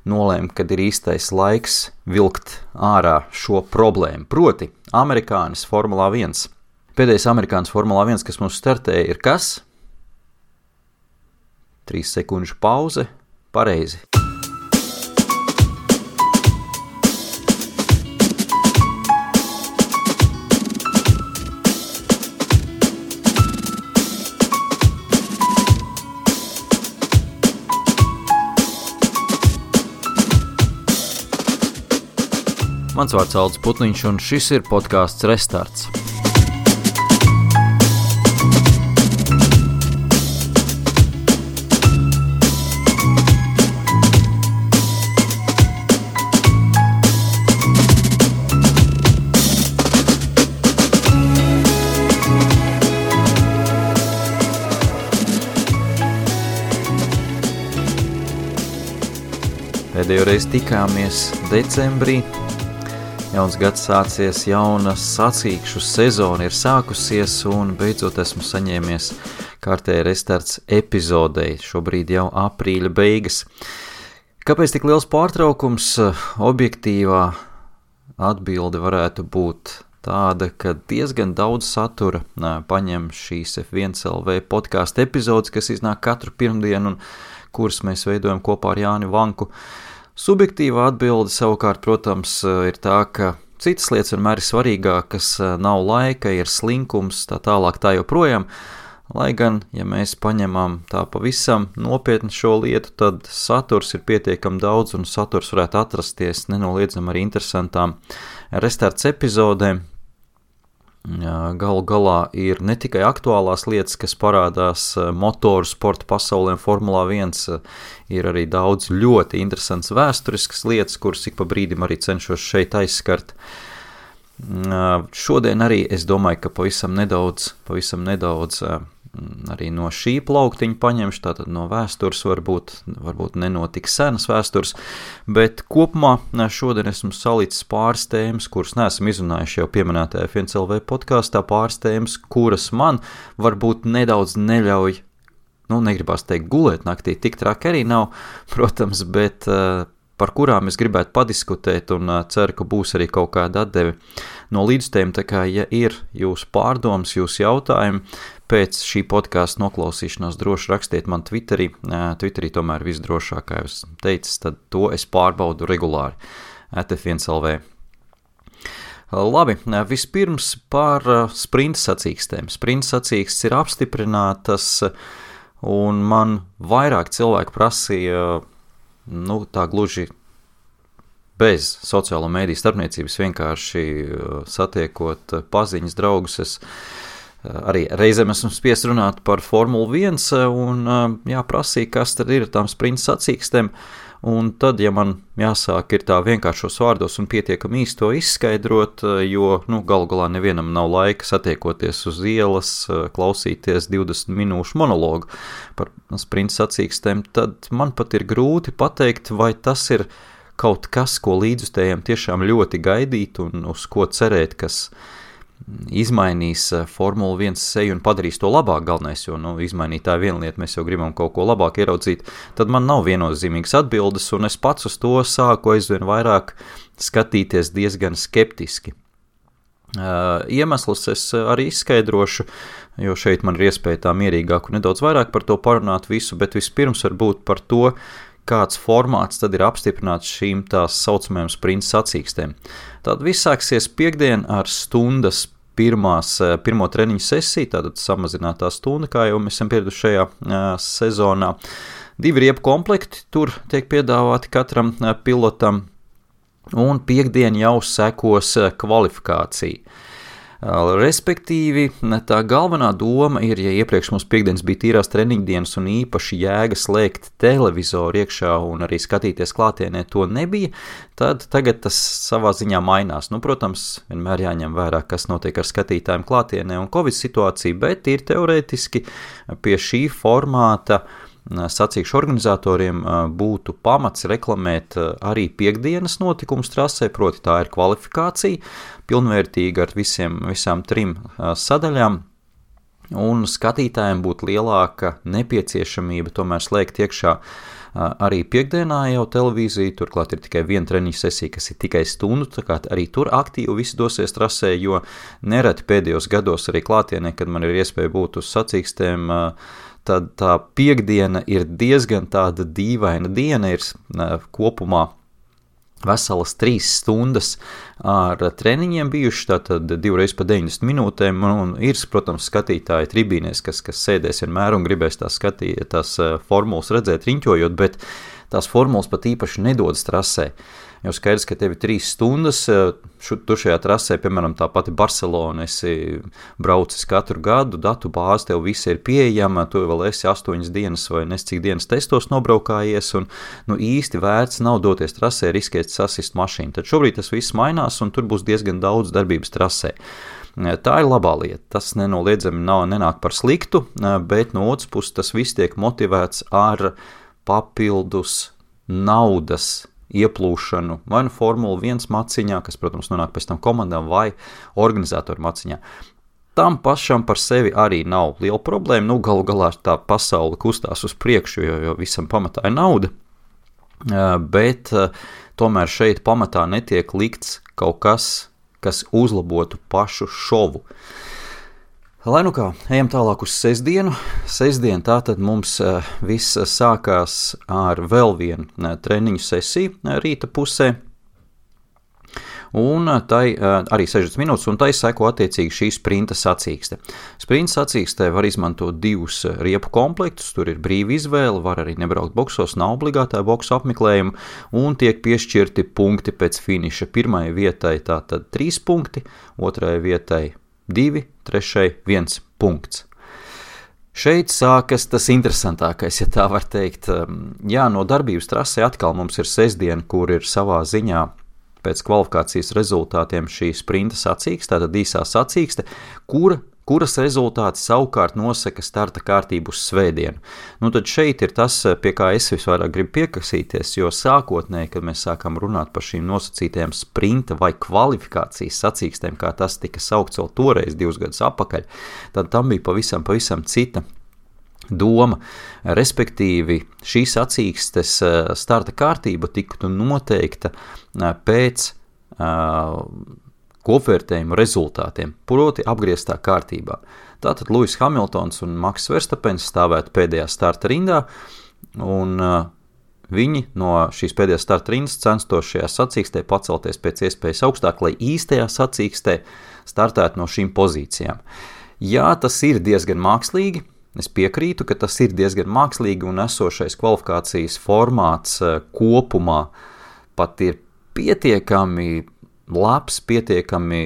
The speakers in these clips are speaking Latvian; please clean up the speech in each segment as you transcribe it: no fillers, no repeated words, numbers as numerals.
nolēma, kad ir īstais laiks vilkt ārā šo problēmu. Proti, amerikānis Formulā 1. Pēdējais amerikānis Formulā 1, kas mums startēja, ir kas? 3 sekundžu pauze. Pareizi. Mans vārds Aldis Putniņš, un šis ir podcasts Restarts. Pēdējo reizi tikāmies decembrī. Jauns gads sācies, jauna sacīkšu sezona ir sākusies un beidzot esmu saņēmies kārtēji Restarts epizodei, šobrīd jau aprīļa beigas. Kāpēc tik liels pārtraukums? Objektīvā atbilde varētu būt tāda, ka diezgan daudz satura paņem šīs F1LV podcastu epizodes, kas iznāk katru pirmdienu un kuras mēs veidojam kopā ar Jāni Vanku. Subjektīvā atbilde savukārt, protams, ir tā, ka citas lietas vienmēr ir svarīgākas, nav laika, ir slinkums, tā tālāk tā joprojām, lai gan, ja mēs paņemam tā pavisam nopietni šo lietu, tad saturs ir pietiekami daudz un saturs varētu atrasties nenoliedzami arī interesantām Restarts epizodēm. Galu galā ir ne tikai aktuālās lietas, kas parādās motoru sporta pasaulē un Formulā 1, ir arī daudz ļoti interesants vēsturiskas lietas, kuras ik pa brīdim arī cenšos šeit aizskart. Šodien arī es domāju, ka pavisam nedaudz arī no šī plauktiņa paņemšu, tātad no vēstures varbūt nenotik senas vēstures, bet kopumā šodien esmu salicis pāris tēmas, kuras neesam izrunājuši jau pieminētajā F1LV podkastā, pāris tēmas, kuras man varbūt nedaudz neļauj, negribās teikt gulēt naktī, tik traki arī nav, protams, bet par kurām es gribētu padiskutēt un ceru, ka būs arī kaut kāda atdeve no līdztēm, tā kā, ja ir jūsu pārdomas, jūsu jautājumi, pēc šī podkasta noklausīšanās droši rakstiet man Twitterī. Twitterī tomēr visdrošāk, kā jūs teicis, tad to es pārbaudu regulāri @F1LV. Labi, vispirms par sprinta sacīkstēm. Sprinta sacīkstes ir apstiprinātas, un man vairāk cilvēku prasīja, tā gluži bez sociālo mēdīju starpniecības, vienkārši satiekot paziņas draugus, es arī reizēm esmu spiest runāt par Formulu 1 un prasīja, kas tad ir tām sprinta sacīkstēm, un tad, ja man jāsāk ir tā vienkāršos vārdos un pietiekami īsti to izskaidrot, jo, galu galā nevienam nav laika satiekoties uz ielas, klausīties 20 minūšu monologu par sprinta sacīkstēm, tad man pat ir grūti pateikt, vai tas ir kaut kas, ko līdzjutējiem tiešām ļoti gaidīt un uz ko cerēt, kas izmainīs Formula 1 seju un padarīs to labāk galvenais, jo, izmainīt tā viena lieta, mēs jau gribam kaut ko labāk ieraudzīt, tad man nav viennozīmīgas atbildes, un es pats uz to sāku aizvien vairāk skatīties diezgan skeptiski. Iemeslus es arī izskaidrošu, jo šeit man ir iespēja tā mierīgāk un nedaudz vairāk par to parunāt visu, bet vispirms varbūt par to, kāds formāts tad ir apstiprināts šīm tās saucamajām sprinta sacīkstēm. Tad viss sāksies piekdien ar stundas pirmo treniņu sesiju, tātad samazinātā stunda, kā jau mēs esam pieraduši šajā sezonā. 2 riepu komplekti tur tiek piedāvāti katram pilotam, un piekdien jau sekos kvalifikācija. Respektīvi, tā galvenā doma ir, ja iepriekš mums piekdienas bija tīrās treniņdienas un īpaši jēga slēgt televizoru iekšā un arī skatīties klātienē to nebija, tad tagad tas savā ziņā mainās. Protams, vienmēr jāņem vērā, kas notiek ar skatītājiem klātienē un Covid situācija, bet ir teorētiski pie šī formāta sacīkšu organizatoriem būtu pamats reklamēt arī piekdienas notikumus trasē, proti tā ir kvalifikācija, pilnvērtīga ar visām 3 sadaļām, un skatītājiem būtu lielāka nepieciešamība tomēr slēgt iekšā Arī piekdienā jau televīzija, turklāt ir tikai viena treniņa sesija, kas ir tikai stundu, tā kā arī tur aktīvi visi dosies trasē, jo nereti pēdējos gados arī klātienē, kad man ir iespēja būt uz sacīkstēm, tad tā piekdiena ir diezgan tāda dīvaina diena, ir kopumā veselas 3 stundas ar treniņiem bijuši, tātad 2 reizes pa 90 minūtēm, un ir, protams, skatītāji tribīnēs, kas sēdēs vienmēr un gribēs tās formulas redzēt riņķojot, bet tās formulas pat īpaši nedodas trasē. Jo skaidrs, ka tev ir 3 stundas, tu šajā trasē, piemēram, tā pati Barcelona, esi braucis katru gadu, datu bāze tev visi ir pieejama, tu vēl esi 8 dienas vai cik dienas testos nobraukājies, un īsti vērts nav doties trasē, riskēt sasist mašīnu. Tad šobrīd tas viss mainās, un tur būs diezgan daudz darbības trasē. Tā ir labā lieta, tas nenoliedzami nenāk par sliktu, bet no otras puses tas viss tiek motivēts ar papildus naudas ieplūšanu vai Formula 1 maciņā, kas, protams, nonāk pēc tam komandām vai organizatoru maciņā. Tam pašam par sevi arī nav liela problēma, galu galā tā pasaule kustās uz priekšu, jo visam pamatā ir nauda, bet tomēr šeit pamatā netiek likts kaut kas uzlabotu pašu šovu. Lai nu kā, ejam tālāk uz sestdienu. Sestdien tātad mums viss sākās ar vēl vienu treniņu sesiju rīta pusē, un tai arī 60 minūtes, un tai seko attiecīgi šī sprinta sacīkste. Sprinta sacīkstē var izmantot 2 riepu komplektus, tur ir brīva izvēle, var arī nebraukt boksos, nav obligātā boksu apmeklējuma, un tiek piešķirti punkti pēc finiša. Pirmajai vietai tātad 3 punkti, otrajai vietai 2, trešai 1 punkts. Šeit sākas tas interesantākais, ja tā var teikt. Jā, no darbības trasē atkal mums ir sestdiena, kur ir savā ziņā pēc kvalifikācijas rezultātiem šī sprinta sacīkste, tātad īsā sacīkste, kuras rezultāti savukārt nosaka starta kārtību uz svētdienu. Tad šeit ir tas, pie kā es visvairāk gribu piekasīties, jo sākotnēji, kad mēs sākam runāt par šīm nosacītajām sprinta vai kvalifikācijas sacīkstēm, kā tas tika saukts vēl toreiz 2 gadus atpakaļ, tad tam bija pavisam cita doma. Respektīvi, šīs sacīkstes starta kārtība tiktu noteikta pēc kopvērtējumu rezultātiem, proti apgrieztā kārtībā. Tātad Lewis Hamiltons un Max Verstappens stāvētu pēdējā starta rindā, un viņi no šīs pēdējās starta rindas censtos šajā sacīkstē pacelties pēc iespējas augstāk, lai īstajā sacīkstē startētu no šīm pozīcijām. Jā, tas ir diezgan mākslīgi, es piekrītu, ka tas ir diezgan mākslīgi, un esošais kvalifikācijas formāts kopumā pat ir pietiekami labs, pietiekami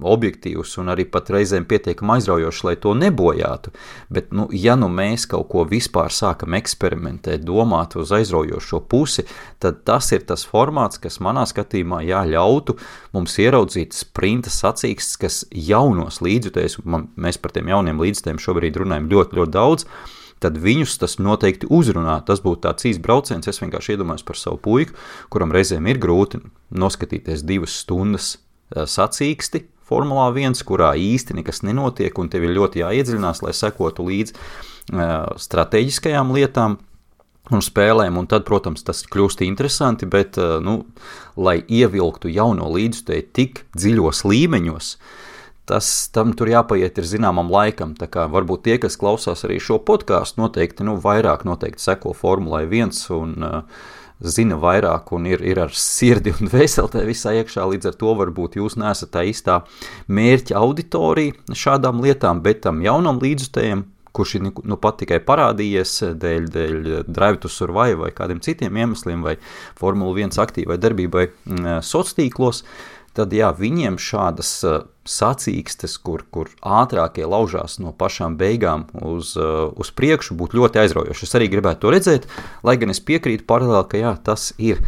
objektīvs un arī pat reizēm pietiekami aizraujošs, lai to nebojātu. Bet, ja mēs kaut ko vispār sākam eksperimentēt, domāt uz aizraujošo pusi, tad tas ir tas formāts, kas manā skatījumā ļautu mums ieraudzīt sprinta sacīkstes, kas jaunos līdzjutējus, mēs par tiem jauniem līdzjutējiem šobrīd runājam ļoti, ļoti daudz, tad viņus tas noteikti uzrunā. Tas būtu tāds īsts brauciens, es vienkārši iedomājos par savu puiku, kuram reizēm ir grūti noskatīties 2 stundas sacīksti Formulā 1, kurā īsti nekas nenotiek, un tev ir ļoti jāiedziļinās, lai sekotu līdz strateģiskajām lietām un spēlēm, un tad, protams, tas kļūst interesanti, bet, lai ievilktu jauno līdzjutēju tik dziļos līmeņos, tam tur jāpaiet ir zināmam laikam, tā kā varbūt tie, kas klausās arī šo podcastu, noteikti, vairāk seko Formulai 1 un zina vairāk un ir ar sirdi un dvēselē visā iekšā, līdz ar to varbūt jūs neesat tā īstā mērķa auditorija šādām lietām, bet tam jaunam līdzjutējam, kurš ir pat tikai parādījies dēļ Drive to Survive vai kādiem citiem iemesliem vai Formula 1 aktīvai darbībai sociālos, tad jā, viņiem šādas sacīkstes, kur ātrākie laužās no pašām beigām uz priekšu, būtu ļoti aizraujoši. Es arī gribētu to redzēt, lai gan es piekrītu paralēli, ka jā, tas ir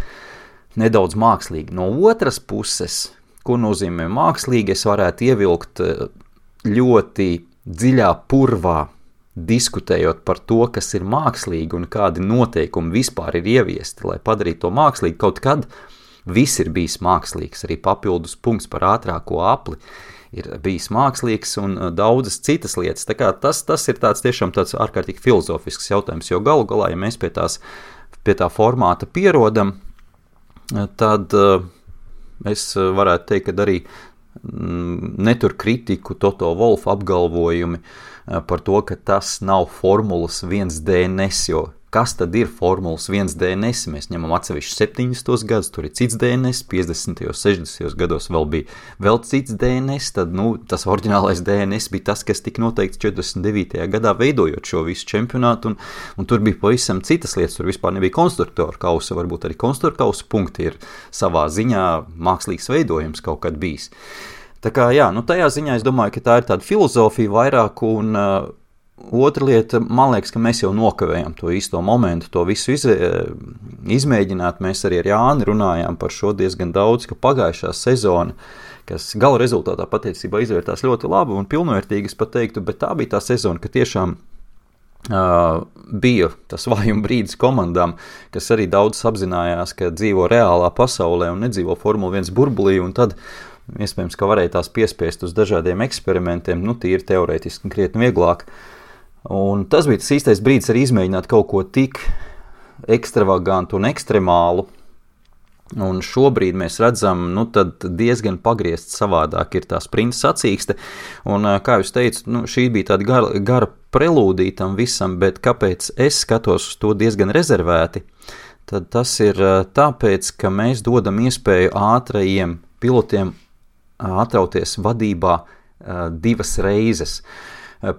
nedaudz mākslīgi. No otras puses, ko nozīmē mākslīgi, es varētu ievilkt ļoti dziļā purvā, diskutējot par to, kas ir mākslīgi un kādi noteikumi vispār ir ieviesti, lai padarītu to mākslīgi kaut kad. Viss ir bijis mākslīgs, arī papildus punkts par ātrāko apli ir bijis mākslīgs un daudzas citas lietas. Tā kā tas ir tiešām tāds ārkārtīgi filozofisks jautājums, jo galu galā, ja mēs pie tās pie tā formāta pierodam, tad es varētu teikt, ka arī netur kritiku Toto Wolff apgalvojumi par to, ka tas nav Formulas 1 DNS, jo kas tad ir Formulas 1 DNS? Mēs ņemam atsevišķi 70. gadus, tur ir cits DNS, 50. 60. gados vēl bija vēl cits DNS, tad tas oriģinālais DNS bija tas, kas tika noteikts 49. gadā veidojot šo visu čempionātu, un tur bija pavisam citas lietas, tur vispār nebija konstruktoru kausa, varbūt arī konstruktoru kausa punkti ir savā ziņā mākslīgs veidojums kaut kad bijis. Tā kā jā, tajā ziņā es domāju, ka tā ir tāda filozofija vairāk, un otra lieta, man liekas, ka mēs jau nokavējam to īsto momentu, to visu izmēģināt. Mēs arī ar Jāni runājām par šo diezgan daudz, ka pagājušā sezona, kas gala rezultātā patiesībā izvērtās ļoti labi un pilnvērtīgi, es pat teiktu, bet tā bija tā sezona, ka tiešām bija tas vājuma brīdis komandām, kas arī daudz apzinājās, ka dzīvo reālā pasaulē un nedzīvo Formula 1 burbulī, un tad iespējams, ka varēja tās piespiest uz dažādiem eksperimentiem, tīri teorētiski krietni vieglāk. Un tas bija tas īstais brīdis arī izmēģināt kaut ko tik ekstravagantu un ekstremālu. Un šobrīd mēs redzam, tad diezgan pagriezt savādāk ir tā sprinta sacīkste. Un, kā jūs teicu, šī bija tāda gara prelūdija tam visam, bet kāpēc es skatos uz to diezgan rezervēti, tad tas ir tāpēc, ka mēs dodam iespēju ātrajiem pilotiem atrauties vadībā 2 reizes.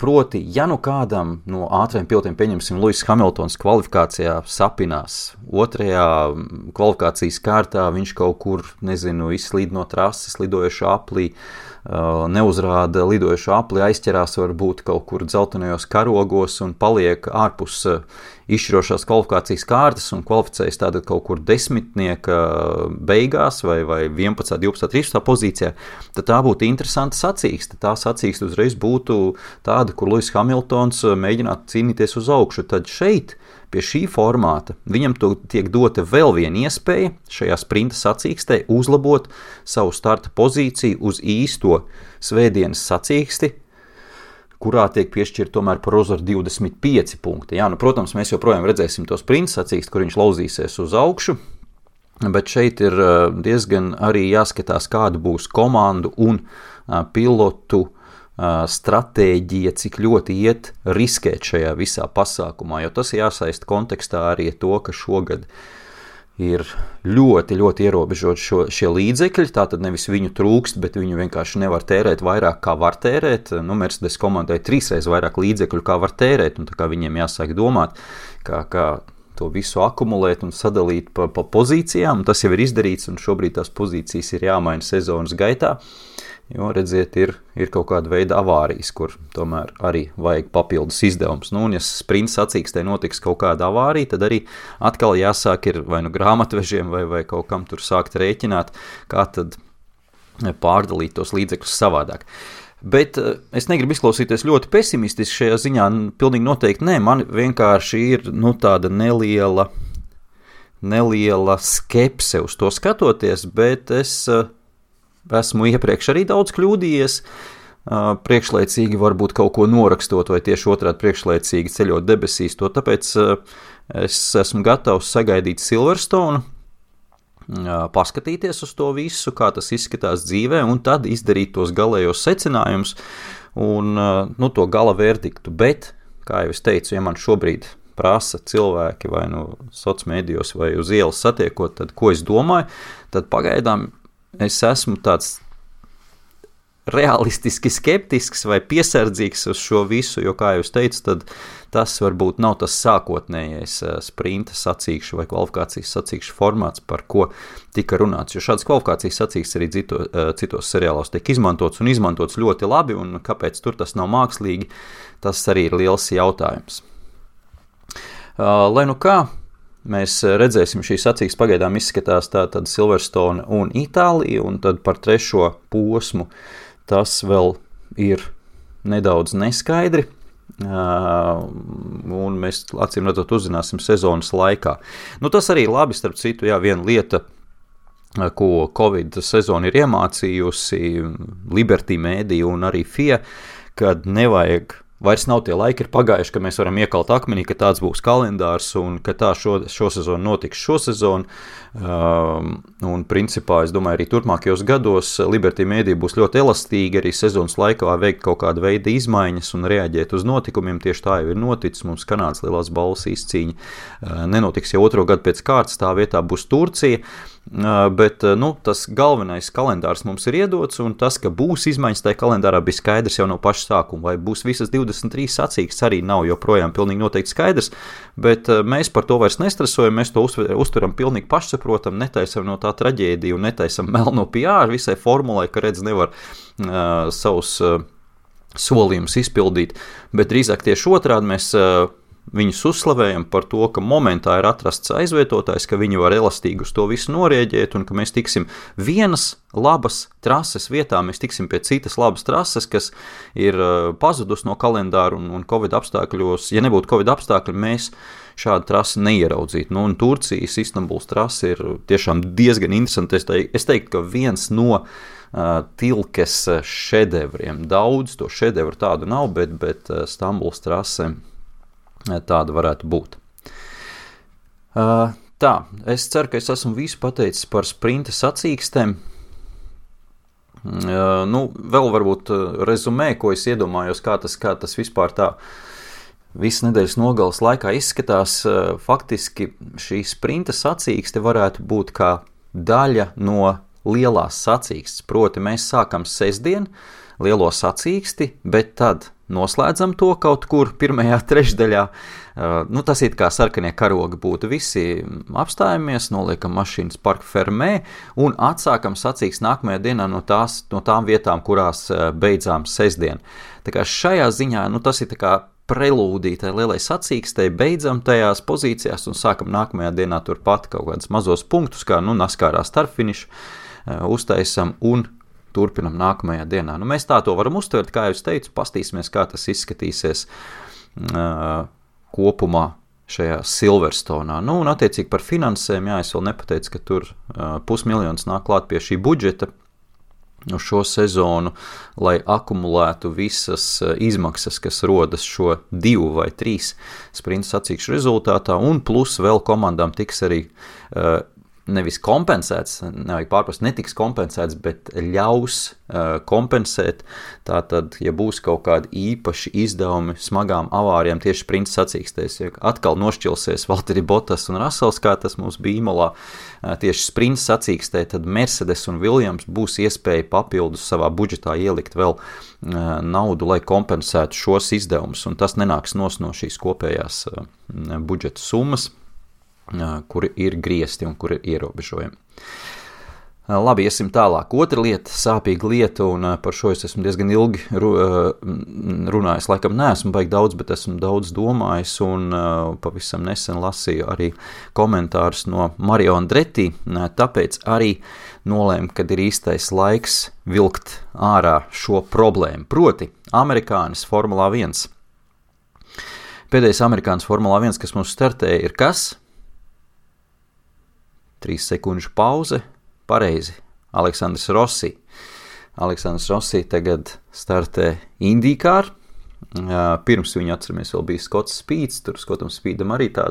Proti, ja kādam no ātriem pilotiem, pieņemsim, Lewis Hamiltons kvalifikācijā sapinās, 2. kvalifikācijas kārtā viņš kaut kur, izslīd no trases lidojošā aplī, neuzrāda lidojošo apli, aizķerās varbūt kaut kur dzeltenajos karogos un paliek ārpus izšķirošās kvalifikācijas kārtas un kvalificējas tātad kaut kur 10. beigās vai 11., 12., 13. pozīcijā, tad tā būtu interesanta sacīkste. Tā sacīkste uzreiz būtu tāda, kur Lewis Hamiltons mēģinātu cīnīties uz augšu. Tad šeit pie šī formāta viņam tiek dota vēl viena iespēja šajā sprinta sacīkstē uzlabot savu starta pozīciju uz īsto svētdienas sacīksti, kurā tiek piešķirt tomēr par uzvaru 25 punkti. Jā, protams, mēs joprojām redzēsim to sprinta sacīksti, kur viņš lauzīsies uz augšu, bet šeit ir diezgan arī jāskatās, kāda būs komandu un pilotu stratēģija, cik ļoti iet riskēt šajā visā pasākumā, jo tas jāsaist kontekstā arī to, ka šogad ir ļoti, ļoti ierobežot šie līdzekļi, tātad nevis viņu trūkst, bet viņu vienkārši nevar tērēt vairāk, kā var tērēt. Mercedes komandai 3 reizes vairāk līdzekļu, kā var tērēt, un tā kā viņiem jāsāk domāt, kā to visu akumulēt un sadalīt pa pozīcijām, un tas jau ir izdarīts, un šobrīd tās pozīcijas ir jāmaina sezonas gaitā. Jo, redziet, ir kaut kāda veida avārijas, kur tomēr arī vajag papildus izdevums. Un ja sprinta sacīkstē notiks kaut kāda avārija, tad arī atkal jāsāk ir vai grāmatvežiem vai kaut kam tur sākt rēķināt, kā tad pārdalīt tos līdzekļus savādāk. Bet es negribu izklausīties ļoti pesimistiski šajā ziņā, pilnīgi noteikti nē, man vienkārši ir tāda neliela skepse uz to skatoties, bet es esmu iepriekš arī daudz kļūdījies, priekšlaicīgi varbūt kaut ko norakstot vai tieši otrādi priekšlaicīgi ceļot debesīs, to tāpēc es esmu gatavs sagaidīt Silverstone, paskatīties uz to visu, kā tas izskatās dzīvē, un tad izdarīt tos galējos secinājumus un to gala verdiktu. Bet, kā jau es teicu, ja man šobrīd prasa cilvēki vai sociālmedijos vai uz ielas satiekot, tad ko es domāju, tad pagaidām es esmu tāds realistiski skeptisks vai piesardzīgs uz šo visu, jo, kā jūs teicu, tad tas varbūt nav tas sākotnējais sprinta sacīkšu vai kvalifikācijas sacīkšu formāts, par ko tika runāts, jo šāds kvalifikācijas sacīksts arī citos seriālos tiek izmantots un izmantots ļoti labi, un kāpēc tur tas nav mākslīgi, tas arī ir liels jautājums. Lai kā, mēs redzēsim, šī sacīksts pagaidām izskatās tātad Silverstone un Itālija, un tad par 3. posmu tas vēl ir nedaudz neskaidri, un mēs acīm redzot uzzināsim sezonas laikā. Tas arī labi, starp citu, viena lieta, ko Covid sezona ir iemācījusi Liberty Media un arī FIA, kad nevajag vairs nav tie laiki ir pagājuši, ka mēs varam iekalt akmenī, ka tāds būs kalendārs un ka tā šo sezonu notiks šo sezonu. Un principā, es domāju, arī turpmākajos gados Liberty Media būs ļoti elastīgi arī sezonas laikā veikt kaut kādu veidu izmaiņas un reaģēt uz notikumiem. Tieši tā jau ir noticis. Mums Kanādas lielās balvas izcīņa nenotiks jau otro gadu pēc kārtas, tā vietā būs Turcija. Bet tas galvenais kalendārs mums ir iedots, un tas, ka būs izmaiņas tajā kalendārā, bija skaidrs jau no paša sākuma. Vai būs visas 23 sacīkstes, arī nav joprojām pilnīgi noteikti skaidrs, bet mēs par to vairs nestresojam, mēs to uztveram pilnīgi pašsaprotam, netaisam no tā traģēdiju un netaisam melno PR visai formulai, ka redz nevar savus solījumus izpildīt, bet drīzāk tieši otrādi mēs viņus uzslavējam par to, ka momentā ir atrasts aizvietotājs, ka viņi var elastīgi uz to visu norēģēt un ka mēs tiksim vienas labas trases vietā, mēs tiksim pie citas labas trases, kas ir pazudus no kalendāra un Covid apstākļos. Ja nebūtu Covid apstākļi, mēs šādu trasi neieraudzītu. Un Turcijas Istanbuls trasi ir tiešām diezgan interesanti. Es teiktu, ka viens no Tilkes šedevriem. Daudz to šedevru tādu nav, bet Stambuls trase tāda varētu būt. Tā, es ceru, ka es esmu visu pateicis par sprinta sacīkstēm. Vēl varbūt rezumē, ko es iedomājos, kā tas vispār tā visas nedēļas nogales laikā izskatās. Faktiski šī sprinta sacīkste varētu būt kā daļa no lielās sacīkstes. Proti mēs sākam sestdien lielo sacīksti, bet tad noslēdzam to kaut kur pirmajā trešdaļā. Tas ir kā sarkanie karogi būtu. Visi apstājamies, noliekam mašīnas parka fermē un atsākam sacīksti nākamajā dienā no tām vietām, kurās beidzām sestdien. Tā kā šajā ziņā, tas ir tā kā prelūdija tai lielai sacīkstei, beidzam tajās pozīcijās un sākam nākamajā dienā turpat kaut kādus mazos punktus, kā Naskārā starpfinišu uztaisam un turpinam nākamajā dienā. Mēs tā to varam uztvert, kā jau es teicu, pastīsimies, kā tas izskatīsies kopumā šajā Silverstonā. Un attiecīgi par finansēm, es vēl nepateicu, ka tur 500 000 nāk klāt pie šī budžeta uz šo sezonu, lai akumulētu visas izmaksas, kas rodas šo 2 vai 3 sprinta sacīkšu rezultātā, un plus vēl komandām tiks arī nevis kompensēts, nevajag pārprast, netiks kompensēts, bet ļaus kompensēt. Tātad, ja būs kaut kādi īpaši izdevumi smagām avārijām tieši sprinta sacīkstēs, ja atkal nošķilsies Valtteri Bottas un Russells, kā tas mums bija Imolā, tieši sprinta sacīkstē, tad Mercedes un Williams būs iespēja papildus savā budžetā ielikt vēl naudu, lai kompensētu šos izdevumus, un tas nenāks no šīs kopējās budžeta summas, kuri ir griezti un kuri ir ierobežojumi. Labi, iesim tālāk. Otra lieta, sāpīga lieta, un par šo es esmu diezgan ilgi runājis. Laikam neesmu baigi daudz, bet esmu daudz domājis, un pavisam nesen lasīju arī komentārus no Mario Andretti, tāpēc arī nolēmu, kad ir īstais laiks vilkt ārā šo problēmu. Proti, amerikānis Formulā 1. Pēdējais amerikānis Formulā 1, kas mums startēja, ir kas? 3 sekundžu pauze, pareizi, Aleksandrs Rossi. Aleksandrs Rossi tagad startē IndyCar. Pirms viņa, atceramies, vēl bija Skots Speeds, tur Skotam Speedam arī tā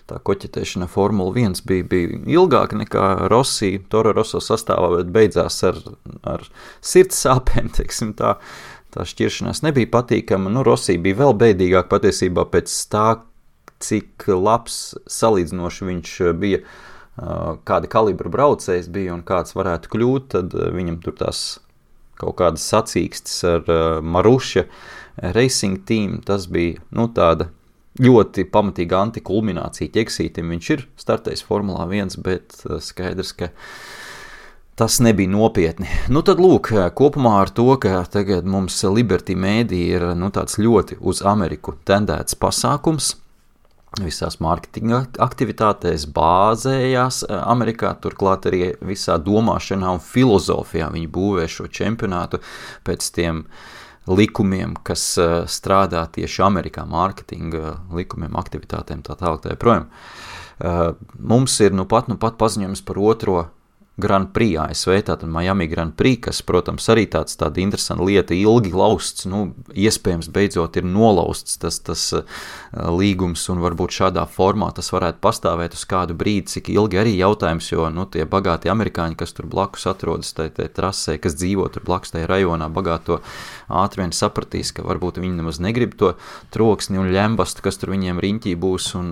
koķetēšana Formula 1 bija ilgāka nekā Rossi, Toro Rosso sastāvā, bet beidzās ar sirds sāpēm, teiksim tā. Tā šķiršanās nebija patīkama. Rossi bija vēl bēdīgāk patiesībā pēc tā, cik labs salīdzinoši viņš bija, kāda kalibra braucējs bija un kāds varētu kļūt, tad viņam tur tās kaut kādas sacīkstes ar Maruša Racing Team, tas bija tāda ļoti pamatīga antikulminācija ķeksītim. Viņš ir startējis Formulā 1, bet skaidrs, ka tas nebija nopietni. Tad lūk, kopumā ar to, ka tagad mums Liberty Media ir tāds ļoti uz Ameriku tendēts pasākums, visās mārketinga aktivitātēs bāzējās Amerikā, turklāt arī visā domāšanā un filozofijā viņi būvē šo čempionātu pēc tiem likumiem, kas strādā tieši Amerikā, mārketinga likumiem, aktivitātēm, tā tālāk, tā joprojām. Mums ir nu pat paziņojums par otro Grand Prix ASV, tātad Miami Grand Prix, kas, protams, arī tāda interesanta lieta, ilgi lausts, iespējams beidzot ir nolausts tas līgums, un varbūt šādā formā tas varētu pastāvēt uz kādu brīdi, cik ilgi arī jautājums, jo, tie bagāti amerikāņi, kas tur blakus atrodas tai trasē, kas dzīvo tur blakus tajā rajonā, bagāto ātri vien sapratīs, ka varbūt viņi nemaz negrib to troksni un ļembastu, kas tur viņiem riņķī būs un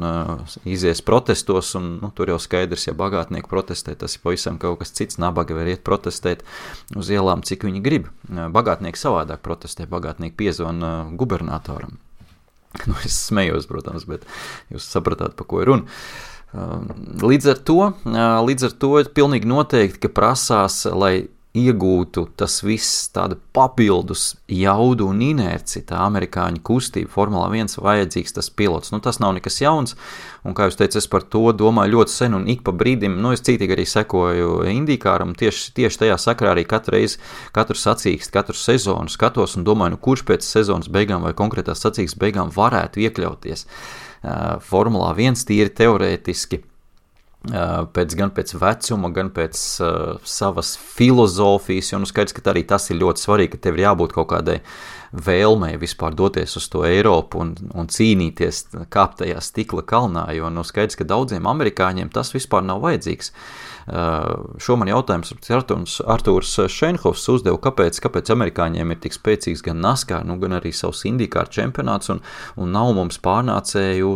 izies protestos, un tur jau skaidrs, ja bagātnieki protestē, tas ir pavisam kaut kas cits, nabaga var iet protestēt uz ielām, cik viņi grib. Bagātnieki savādāk protestē, bagātnieki piezvana gubernatoram. Es smējos, protams, bet jūs sapratāt, pa ko ir runa. Līdz ar to pilnīgi noteikti, ka prasās, lai iegūtu tas viss tāda papildus jaudu un inerci, tā amerikāņu kustība, Formula 1 vajadzīgs tas pilots. Tas nav nekas jauns, un kā jūs teicat, es par to domāju ļoti sen, un ik pa brīdim, es cītīgi arī sekoju IndyCaram, tieši tajā sakrā arī katru sacīkstu, katru sezonu skatos un domāju, kurš pēc sezonas beigām vai konkrētās sacīkstes beigām varētu iekļauties Formulā 1 tīri teorētiski, gan pēc vecuma, gan pēc savas filozofijas, jo skaidrs, ka arī tas ir ļoti svarīgi, ka tev ir jābūt kaut kādai vēlmei vispār doties uz to Eiropu un cīnīties, kāpt tajā stikla kalnā, jo skaidrs, ka daudziem amerikāņiem tas vispār nav vajadzīgs. Šo man jautājums Artūrs Šenhofs uzdeva, kāpēc amerikāņiem ir tik spēcīgs gan NASCAR, gan arī savs IndyCar čempionāts un nav mums pārnācēju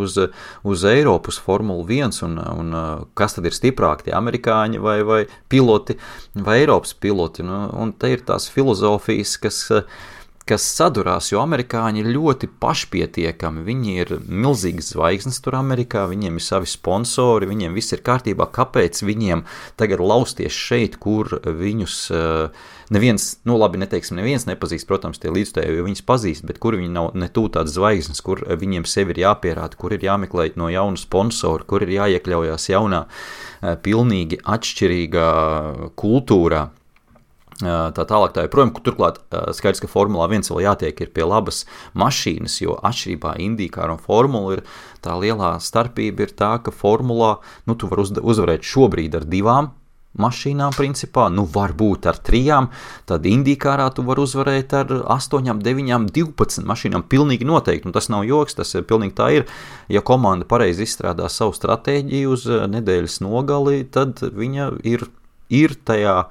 uz Eiropas Formulu 1 un kas tad ir stiprāk, tie amerikāņi vai piloti vai Eiropas piloti. Un te ir tās filozofijas, kas sadurās, jo amerikāņi ir ļoti pašpietiekami, viņi ir milzīgas zvaigznes tur Amerikā, viņiem ir savi sponsori, viņiem viss ir kārtībā, kāpēc viņiem tagad lausties šeit, kur viņus neviens, neviens nepazīst, protams, tie līdzstēji, jo viņus pazīst, bet kur viņi nav ne tū tādas zvaigznes, kur viņiem sevi ir jāpierāda, kur ir jāmeklē no jauna sponsora, kur ir jāiekļaujās jaunā, pilnīgi atšķirīgā kultūrā. Tā tālāk tā joprojām, turklāt skaidrs, ka Formulā 1 vēl jātiek ir pie labas mašīnas, jo atšķirībā IndyCar un Formula ir tā lielā starpība ir tā, ka Formulā, tu var uzvarēt šobrīd ar 2 mašīnām principā, varbūt ar 3, tad IndyCarā tu var uzvarēt ar 8, 9, 12 mašīnām, pilnīgi noteikti, tas nav joks, tas pilnīgi tā ir, ja komanda pareizi izstrādā savu stratēģiju uz nedēļas nogali, tad viņa ir tajā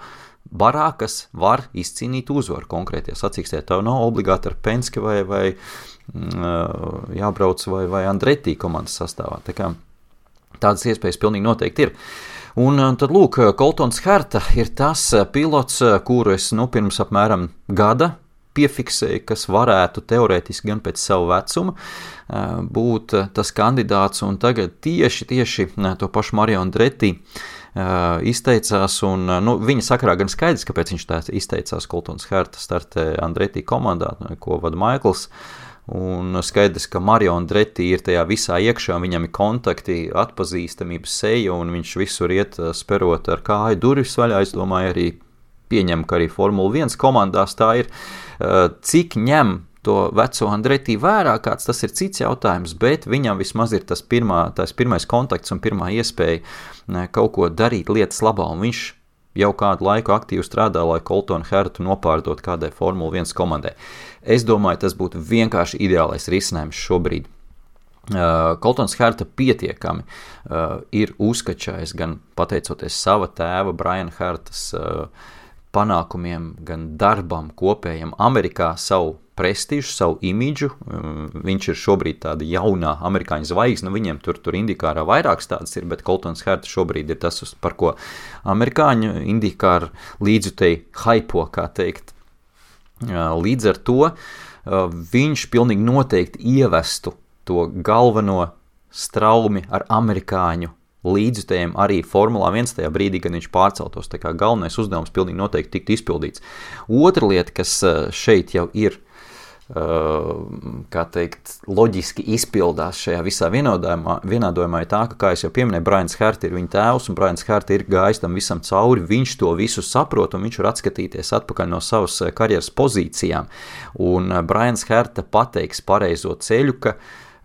barā, kas var izcīnīt uzvaru konkrētajā sacīkstē. Tev nav obligāti ar Penske vai jābrauc vai Andretti komandas sastāvā. Tā kā tādas iespējas pilnīgi noteikti ir. Un tad lūk, Coltons Herta ir tas pilots, kuru es pirms apmēram gada piefiksēju, kas varētu teorētiski gan pēc savu vecumu būt tas kandidāts, un tagad tieši to pašu Mario Andretti izteicās, un viņa sakarā gan skaidrs, kāpēc viņš tā izteicās. Coltons Herta startē Andretti komandā, ko vada Maikls, un skaidrs, ka Mario Andretti ir tajā visā iekšā, viņam ir kontakti, atpazīstamības seja, un viņš visur iet sperot ar kāju durvis vaļā. Es domāju, arī pieņem, ka arī Formula 1 komandās tā ir, cik ņem to veco Andretti vērā, kāds tas ir cits jautājums, bet viņam vismaz ir tas pirmais kontakts un pirmā iespēja kaut ko darīt lietas labā, un viņš jau kādu laiku aktīvi strādā, lai Coltonu Hertu nopārdot kādai Formula 1 komandai. Es domāju, tas būtu vienkārši ideālais risinājums šobrīd. Coltons Herta pietiekami ir uzkačājis gan pateicoties sava tēva Brian Hertas panākumiem, gan darbam kopējam Amerikā, savu prestižu, savu imidžu. Viņš ir šobrīd tāda jaunā amerikāņu zvaigzne, viņiem tur IndyCarā vairākas tādas ir, bet Coltons Herta šobrīd ir tas, par ko amerikāņu IndyCar līdzutēji haipo, kā teikt. Līdz ar to viņš pilnīgi noteikti ievestu to galveno straumi ar amerikāņu līdzutējiem arī Formulā 1 tajā brīdī, kad viņš pārceltos. Tā kā galvenais uzdevums pilnīgi noteikti tiktu izpildīts. Otra lieta, kas šeit jau ir, kā teikt, loģiski izpildās šajā visā vienādojumā, ir tā, ka, kā es jau pieminēju, Brians Herta ir viņa tēvs, un Brians Herta ir gājis tam visam cauri, viņš to visu saprot, un viņš var atskatīties atpakaļ no savas karjeras pozīcijām. Un Brians Herta pateiks pareizo ceļu, ka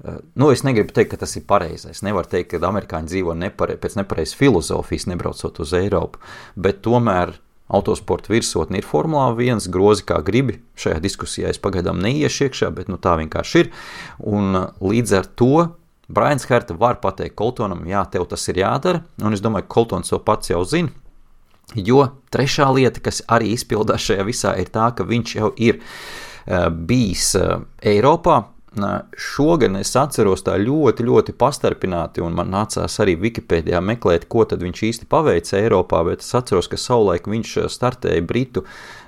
Es negribu teikt, ka tas ir pareizais. Nevar teikt, ka amerikāņi dzīvo pēc nepareizas filozofijas, nebraucot uz Eiropu, bet tomēr autosporta virsotne ir Formulā 1, grozi kā gribi. Šajā diskusijā es pagaidām neiešu iekšā, bet tā vienkārši ir. Un līdz ar to Brians Herta var pateikt Coltonam, jā, tev tas ir jādara, un es domāju, ka Coltons to pats jau zina, jo trešā lieta, kas arī izpildās šajā visā, ir tā, ka viņš jau ir bijis Eiropā. Šogad es atceros tā ļoti, ļoti pastarpināti, un man nācās arī Wikipēdijā meklēt, ko tad viņš īsti paveica Eiropā, bet es atceros, ka savulaik viņš startēja Britu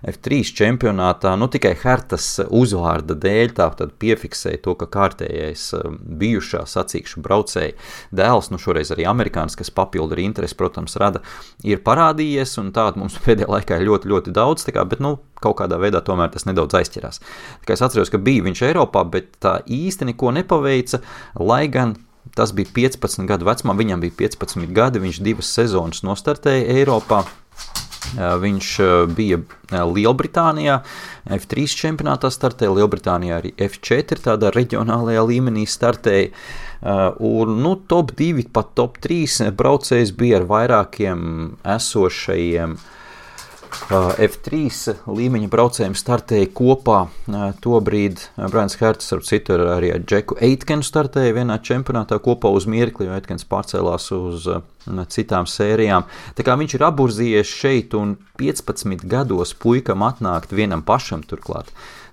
F3 čempionātā, tikai Hertas uzvārda dēļ, tā tad piefiksēja to, ka kārtējais bijušā sacīkšu braucēja dēls, šoreiz arī amerikānis, kas papildu arī interesi, protams, rada, ir parādījies, un tādu mums pēdējā laikā ir ļoti, ļoti daudz, bet kaut kādā veidā tomēr tas nedaudz aizķirās. Tā kā es atceros, ka bija viņš Eiropā, bet tā īsti neko nepaveica, lai gan tas bija 15 gadu vecumā, viņam bija 15 gadi, viņš 2 sezonas nostartēja Eiropā. Viņš bija Lielbritānijā, F3 čempionātā startēja, Lielbritānijā arī F4 tādā reģionālajā līmenī startēja, un top 2, pat top 3 braucējs bija ar vairākiem esošajiem F3 līmeņa braucējiem startēja kopā. Tobrīd Brians Herts ar citu arī ar Džeku Eitkenu startēja vienā čempionātā kopā uz mirkli, jo Eitkens pārcēlās uz citām sērijām. Tā kā viņš ir aburzījies šeit un 15 gados puikam atnākt vienam pašam turklāt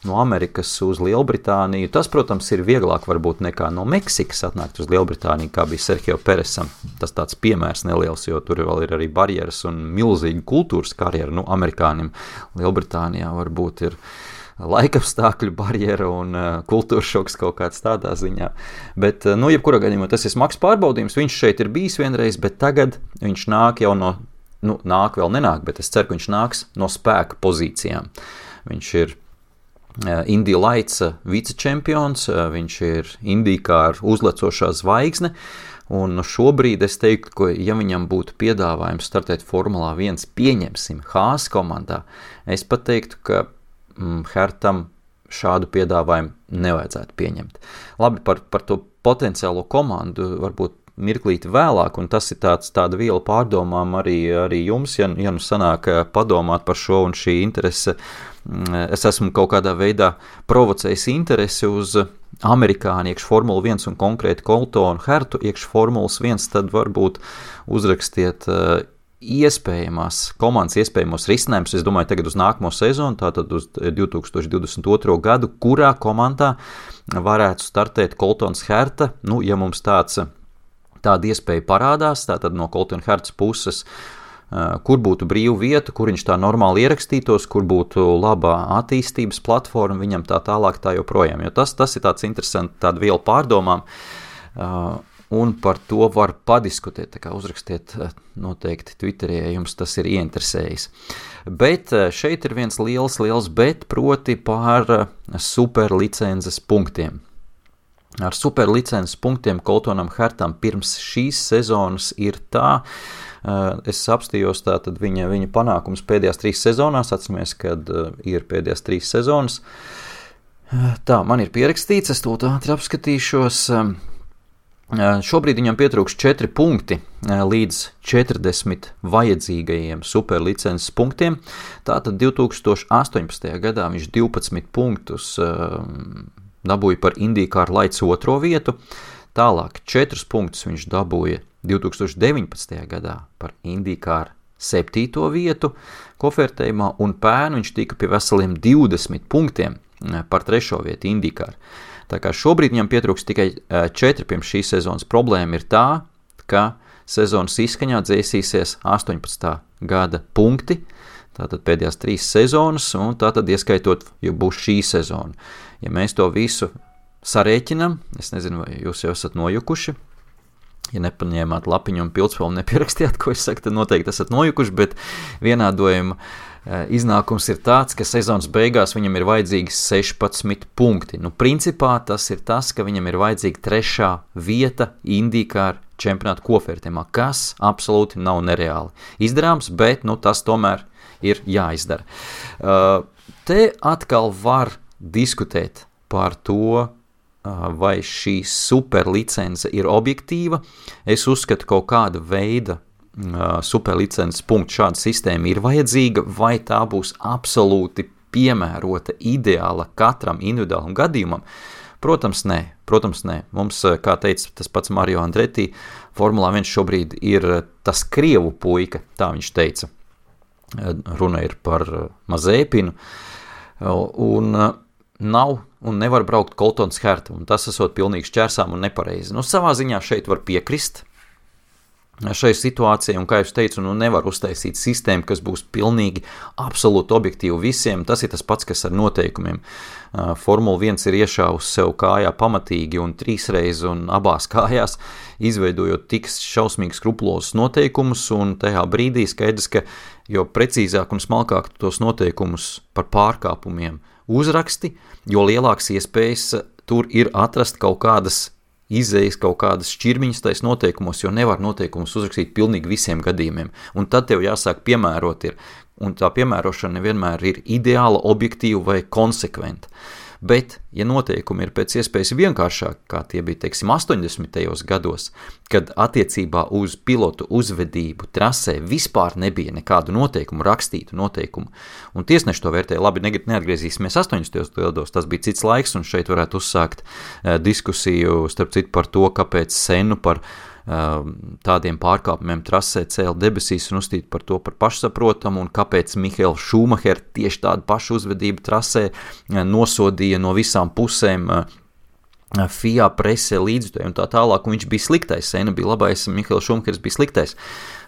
no Amerikas uz Lielbritāniju. Tas, protams, ir vieglāk varbūt nekā no Meksikas atnākt uz Lielbritāniju, kā bija Sergio Peresam. Tas tāds piemērs neliels, jo tur vēl ir arī barjeras un milzīga kultūras karjera. Amerikānim Lielbritānijā varbūt ir laikapstākļu barjera un kultūras šoks kaut kāds tādā ziņā. Bet, jebkurā gadījumā tas ir smags pārbaudījums. Viņš šeit ir bijis vienreiz, bet tagad viņš nāk jau no, nāk vēl nenāk, bet es ceru, ka viņš nāks no spēka pozīcijām. Viņš ir Indy Lights vicečempions, viņš ir IndyCar uzlecošā zvaigzne, un šobrīd es teiktu, ka ja viņam būtu piedāvājums startēt Formulā 1, pieņemsim Haas komandā, es pat teiktu, ka Hertam šādu piedāvājumu nevajadzētu pieņemt. Labi, par to potenciālo komandu varbūt mirklīti vēlāk, un tas ir tāda viela pārdomām arī jums, ja sanāk padomāt par šo un šī interese. Es esmu kaut kādā veidā provocējis interesi uz amerikāņu iekš Formula 1 un konkrēti Coltonu Hertu iekš Formulas 1, tad varbūt uzrakstiet komandas iespējamos risinājumus. Es domāju tagad uz nākamo sezonu, tātad uz 2022. gadu, kurā komandā varētu startēt Coltons Herta, ja mums tāda iespēja parādās, tātad no Coltona Hertas puses, kur būtu brīva vieta, kur viņš tā normāli ierakstītos, kur būtu labā attīstības platforma, viņam tā tālāk tā joprojām. Jo tas ir tāds interesants, tāda viela pārdomām, un par to var padiskutēt, tā kā uzrakstiet noteikti Twitterī, ja jums tas ir ieinteresējis. Bet šeit ir viens liels bet, proti par superlicences punktiem. Ar superlicences punktiem Coltonam Hertam pirms šīs sezonas ir tā, es apstījos tātad viņa panākums pēdējās 3 sezonās, atceramies, kad ir pēdējās 3 sezonas. Tā, man ir pierakstīts, es to ātri apskatīšos. Šobrīd viņam pietrūks 4 punkti līdz 40 vajadzīgajiem superlicences punktiem. Tātad 2018. gadā viņš 12 punktus dabūja par IndyCar Lights 2. vietu, tālāk 4 punktus viņš dabūja 2019. gadā par IndyCar 7. vietu kofertējumā, un pērn viņš tika pie veseliem 20 punktiem par 3. vietu IndyCar. Tā kā šobrīd viņam pietrūks tikai 4 pirms šīs sezonas. Problēma ir tā, ka sezonas izskaņā dzēsīsies 18. gada punkti, tātad pēdējās 3 sezonas, un tātad ieskaitot, ja būs šī sezona. Ja mēs to visu sarēķinam, es nezinu, vai jūs jau esat nojukuši, ja nepaņēmāt lapiņu un pildspēlu un nepierakstījāt, ko es saku, tad noteikti esat nojukuši, bet vienādojuma iznākums ir tāds, ka sezonas beigās viņam ir vajadzīgi 16 punkti. Principā tas ir tas, ka viņam ir vajadzīga 3. vieta IndyCar čempionāta kofertējumā, kas absolūti nav nereāli izdarāms, bet tas tomēr ir jāizdara. Te atkal var diskutēt par to, vai šī superlicence ir objektīva. Es uzskatu, kaut kāda veida superlicences punktu šāda sistēma ir vajadzīga, vai tā būs absolūti piemērota, ideāla katram individuālam gadījumam. Protams, nē. Mums, kā teica tas pats Mario Andretti, Formulā 1 šobrīd ir tas krievu puika, tā viņš teica. Runa ir par Mazepinu, un nav un nevar braukt Coltons Herta, un tas esot pilnīgi šķērsām un nepareizi. Savā ziņā šeit var piekrist šai situācijai, un kā jūs teicu, nevar uztaisīt sistēmu, kas būs pilnīgi absolūti objektīvi visiem. Tas ir tas pats, kas ar noteikumiem. Formula 1 ir iešāvusi sev kājā pamatīgi un 3 reizes un abās kājās, izveidojot tik šausmīgi skrupulozus noteikumus, un tajā brīdī skaidrs, ka jo precīzāk un smalkāk tos noteikumus par pārkāpumiem uzraksti, jo lielāks iespējas tur ir atrast kaut kādas izējas, kaut kādas šķirmiņas tais noteikumos, jo nevar noteikumus uzrakstīt pilnīgi visiem gadījumiem. Un tad tev jāsāk piemērot ir, un tā piemērošana nevienmēr ir ideāla, objektīva vai konsekventa. Bet, ja noteikumi ir pēc iespējas vienkāršāk, kā tie bija, teiksim, 80. gados, kad attiecībā uz pilotu uzvedību trasē vispār nebija nekādu noteikumu, rakstītu noteikumu, un tiesneši to vērtēja, labi, neatgriezīsimies 80. gados, tas bija cits laiks, un šeit varētu uzsākt diskusiju, starp citu, par to, kāpēc Senu par tādiem pārkāpumiem trasē cēla debesīs un uzstīt par to par pašsaprotamu, un kāpēc Mihails Šumacher tieši tādu pašu uzvedību trasē nosodīja no visām pusēm FIA presē līdzjutēji un tā tālāk, un viņš bija sliktais, Sena bija labais, Mihails Šumachers bija sliktais.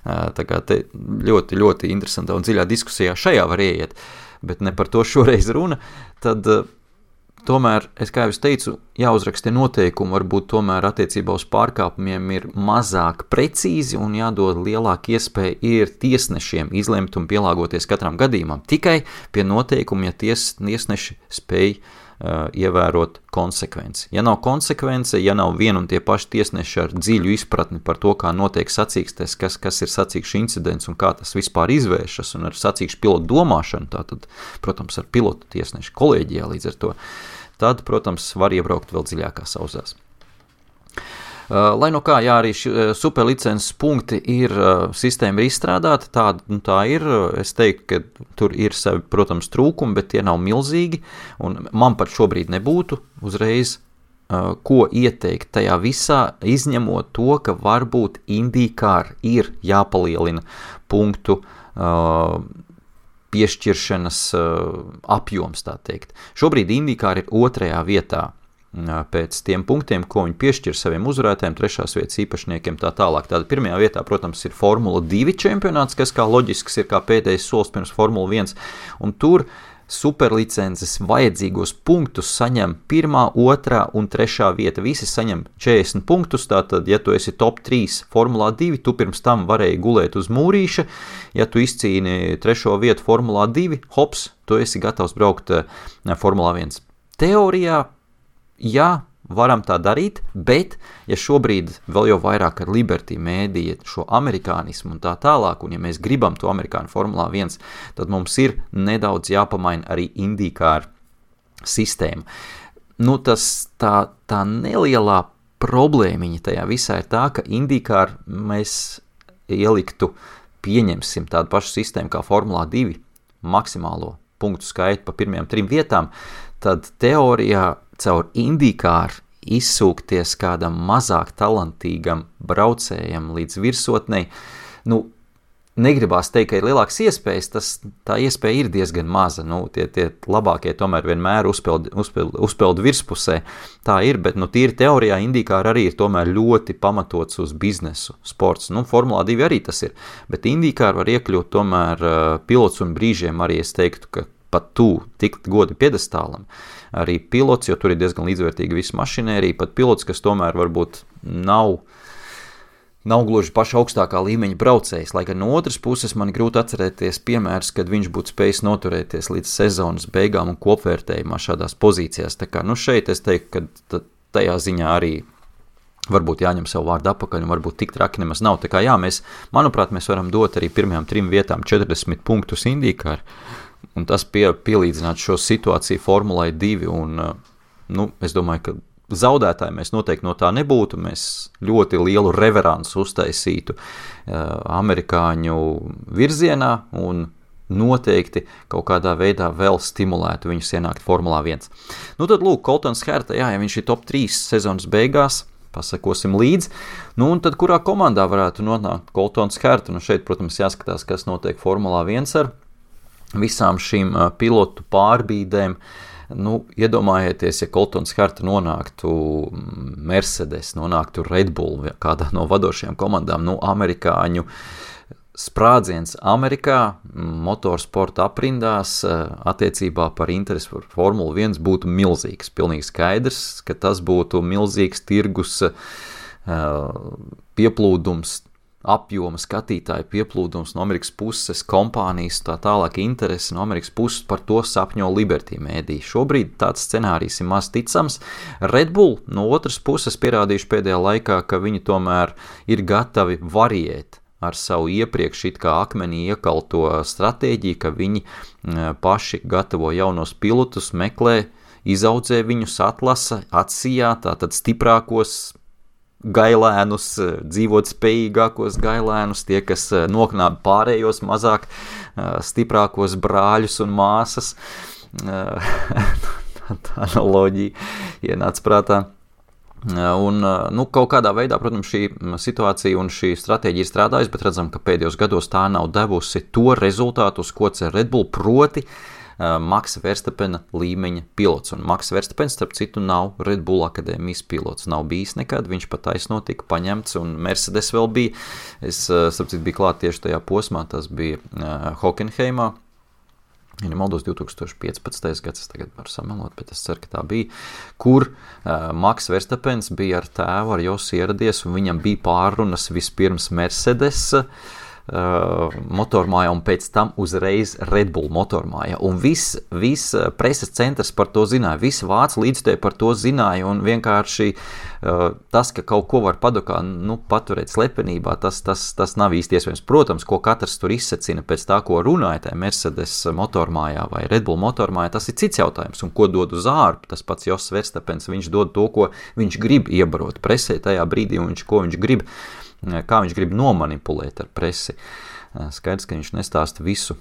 Tā kā te ļoti, ļoti interesantā un dziļā diskusijā šajā var ieiet, bet ne par to šoreiz runa, tad tomēr, kā jau es teicu, jāuzraksta noteikumi, varbūt tomēr attiecībā uz pārkāpumiem ir mazāk precīzi un jādod lielāka iespēja ir tiesnešiem izlemt un pielāgoties katram gadījumam. Tikai pie noteikuma, ja tiesneši spēj ievērot konsekvenci. Ja nav konsekvence, ja nav vien un tie paši tiesneši ar dziļu izpratni par to, kā notiek sacīkstes, kas ir sacīkšu incidents un kā tas vispār izvēršas, un ar sacīkšu pilotu domāšanu, tātad, protams, ar pilotu tiesnešu kolēģijā līdz ar to, tad, protams, var iebraukt vēl dziļākās auzās. Lai no kā, jā, arī superlicences punkti ir, sistēma ir izstrādāta, tā ir, es teiktu, ka tur ir savi, protams, trūkumi, bet tie nav milzīgi, un man pat šobrīd nebūtu uzreiz, ko ieteikt tajā visā, izņemot to, ka varbūt IndyCar ir jāpalielina punktu piešķiršanas apjoms, tā teikt. Šobrīd IndyCar ir 2. vietā pēc tiem punktiem, ko viņi piešķir saviem uzvarētājiem, 3. vietas īpašniekiem tā tālāk. Tāda 1. vietā, protams, ir Formula 2 čempionāts, kas kā loģisks ir kā pēdējais solis pirms Formula 1, un tur superlicences vajadzīgos punktus saņem 1., 2. un 3. vieta. Visi saņem 40 punktus, tātad, ja tu esi top 3 Formulā 2, tu pirms tam varēji gulēt uz mūrīša, ja tu izcīni 3. vietu Formulā 2, hops, tu esi gatavs braukt Formulā 1. Teorijā, jā, varam tā darīt, bet, ja šobrīd vēl jau vairāk ar Liberty mēdīja šo amerikānismu un tā tālāk, un ja mēs gribam to amerikāņu Formulā 1, tad mums ir nedaudz jāpamaina arī IndyCar sistēma. Tā nelielā problēmiņa tajā visā ir tā, ka IndyCar mēs ieliktu, pieņemsim tādu pašu sistēmu kā Formulā 2, maksimālo punktu skaitu pa pirmajām 3 vietām, tad teorijā caur IndyCar izsūkties kādam mazāk talantīgam braucējam līdz virsotnei, negribās teikt, ka ir lielāks iespējas, tā iespēja ir diezgan maza, tie labākie tomēr vienmēr uzpeld virspusē, tā ir, bet tīri teorijā IndyCar arī ir tomēr ļoti pamatots uz biznesu sports, Formulā 2 arī tas ir, bet IndyCar var iekļūt tomēr pilots un brīžiem arī es teiktu, ka pat tikt godi piedestālam, arī pilots, jo tur ir diezgan līdzvērtīga visa mašinērija, pat pilots, kas tomēr varbūt nav gluži paša augstākā līmeņa braucējs, lai gan no otras puses man grūti atcerēties piemērs, kad viņš būtu spējis noturēties līdz sezonas beigām un kopvērtējumā šādās pozīcijās. Tā kā, šeit es teiktu, ka tajā ziņā arī varbūt jāņem savu vārdu apakaļ un varbūt tik traki nemaz nav. Tā kā jā, manuprāt, mēs varam dot arī pirmajām 3 vietām 40 punktus IndyCar, un tas pielīdzināt šo situāciju Formulai 2, un, es domāju, ka zaudētāji mēs noteikti no tā nebūtu, mēs ļoti lielu reveransu uztaisītu amerikāņu virzienā un noteikti kaut kādā veidā vēl stimulētu viņus ienākt Formulā 1. Nu tad lūk, Coltons Herta, ja viņš ir top 3 sezonas beigās, pasakosim līdzi, nu un tad kurā komandā varētu nonākt Coltons Herta, nu šeit, protams, jāskatās, kas notiek Formulā 1 ar visām šīm pilotu pārbīdēm. Nu, iedomājieties, ja Coltons Herta nonāktu Mercedes, nonāktu Red Bull, kādā no vadošajām komandām, nu, amerikāņu sprādziens Amerikā, motorsporta aprindās, attiecībā par interesi par Formulu 1 būtu milzīgs. Pilnīgi skaidrs, ka tas būtu milzīgs tirgus pieplūdums, apjoma skatītāju pieplūdums no Amerikas puses, kompānijas, tā tālāk interesi no Amerikas puses, par to sapņo Liberty mēdī. Šobrīd tāds scenārijs ir maz ticams. Red Bull no otras puses pierādījuši pēdējā laikā, ka viņi tomēr ir gatavi variēt ar savu iepriekš it kā akmenī iekalto stratēģiju, ka viņi paši gatavo jaunos pilotus, meklē, izaudzē viņus, atlasa, atsijā, tātad stiprākos gailēnus, dzīvot spējīgākos gailēnus, tie, kas noknāba pārējos mazāk stiprākos brāļus un māsas. Tā analoģija ienāca prātā. Un, nu, kaut kādā veidā, protams, šī situācija un šī stratēģija ir strādājusi, bet redzam, ka pēdējos gados tā nav devusi to rezultātu, uz ko cer Red Bull, proti Maxa Verstappena līmeņa pilots. Un Maxa Verstappens, starp citu, nav Red Bull akadēmijas pilots. Nav bijis nekad, viņš pat taisno tika paņemts, un Mercedes vēl bija. Es, starp citu, biju klāt tieši tajā posmā, tas bija Hockenheimā. Ja nemaldos 2015. gads, es tagad varu samelot, bet es ceru, ka tā bija, kur Max Verstappens bija ar tēvu, ar Josi ieradies, un viņam bija pārrunas vispirms Mercedes motormājā un pēc tam uzreiz Red Bull motormājā. Un viss preses centrs par to zināja, visi vācu līdzstēji par to zināja, un vienkārši tas, ka kaut ko var padokā, nu, paturēt slepenībā, tas nav īsti iespējams. Protams, ko katrs tur izsacina pēc tā, ko runāja tajā Mercedes motormājā vai Red Bull motormājā, tas ir cits jautājums, un ko dod uz ārpu, tas pats Jos Verstappens, viņš dod to, ko viņš grib iebarot presē tajā brīdī, un ko viņš grib, kā viņš grib nomanipulēt ar presi. Skaidrs, ka viņš nestāsta visu,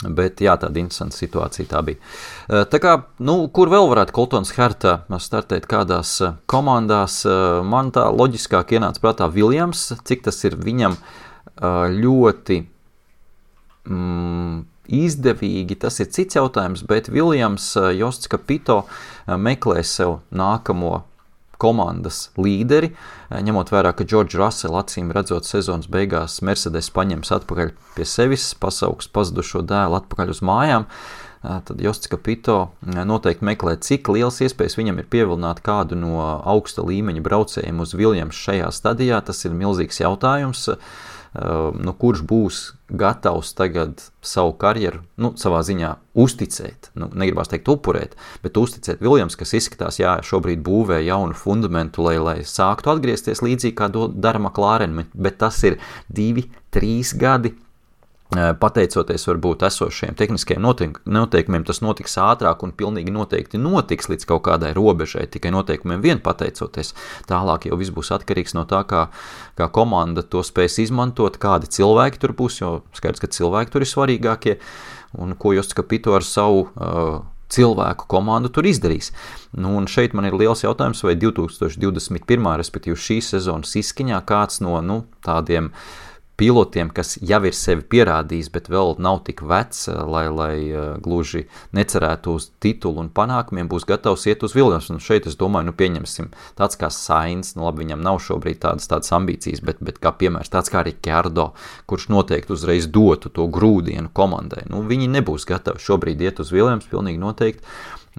bet jā, tāda interesanta situācija tā bija. Tā kā, nu, kur vēl varētu Coltons Herta startēt kādās komandās, man tā loģiskāk ienāca prātā Williams, cik tas ir viņam ļoti izdevīgi, tas ir cits jautājums, bet Williams, Josts Capito meklē sev nākamo komandas līderi, ņemot vērā, ka George Russell acīm redzot sezonas beigās Mercedes paņems atpakaļ pie sevis, pasauks pazudušo dēlu atpakaļ uz mājām, tad Josts Capito noteikti meklē, cik liels iespējas viņam ir pievilināt kādu no augsta līmeņa braucējiem uz Williams šajā stadijā. Tas ir milzīgs jautājums, nu, kurš būs gatavs tagad savu karjeru, nu, savā ziņā uzticēt, nu, negribās teikt upurēt, bet uzticēt Williams, kas izskatās, jā, šobrīd būvē jaunu fundamentu, lai sāktu atgriezties līdzīgi, kā dara McLaren, bet tas ir 2-3 gadi, pateicoties varbūt esošajiem tehniskajiem noteikumiem, tas notiks ātrāk un pilnīgi noteikti notiks līdz kaut kādai robežai, tikai noteikumiem vien pateicoties. Tālāk jau viss būs atkarīgs no tā, kā komanda to spēs izmantot, kādi cilvēki tur būs, jo skaidrs, ka cilvēki tur ir svarīgākie, un ko Josts Capito ar savu cilvēku komandu tur izdarīs. Nu, un šeit man ir liels jautājums, vai 2021. Respektīvi šīs sezonas izskaņā kāds no, nu, tādiem pilotiem, kas jau ir sevi pierādījis, bet vēl nav tik vecs, lai gluži necerētu uz titulu un panākumiem, būs gatavs iet uz Williams. Un šeit es domāju, nu pieņemsim tāds kā Sainz, nu labi, viņam nav šobrīd tādas ambīcijas, bet kā piemērs tāds kā Ricciardo, kurš noteikti uzreiz dotu to grūdienu komandai. Nu, viņi nebūs gatavi šobrīd iet uz Williams, pilnīgi noteikti,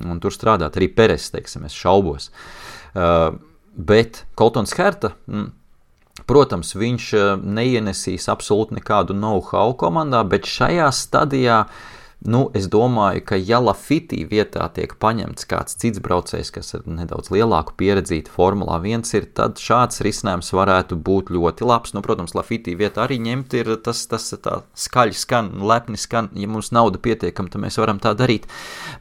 un tur strādāt arī Perez, teiksim, es šaubos. Bet Coltons Herta, protams, viņš neienesīs absolūti nekādu know-how komandā, bet šajā stadijā, nu, es domāju, ka ja Lafiti vietā tiek paņemts kāds cits braucējs, kas ir nedaudz lielāku pieredzīti Formulā 1 ir, tad šāds risinājums varētu būt ļoti labs. Nu, protams, Lafiti vietā arī ņemt ir tas tā skaļi skan, lepni skan, ja mums nauda pietiekam, tad mēs varam tā darīt.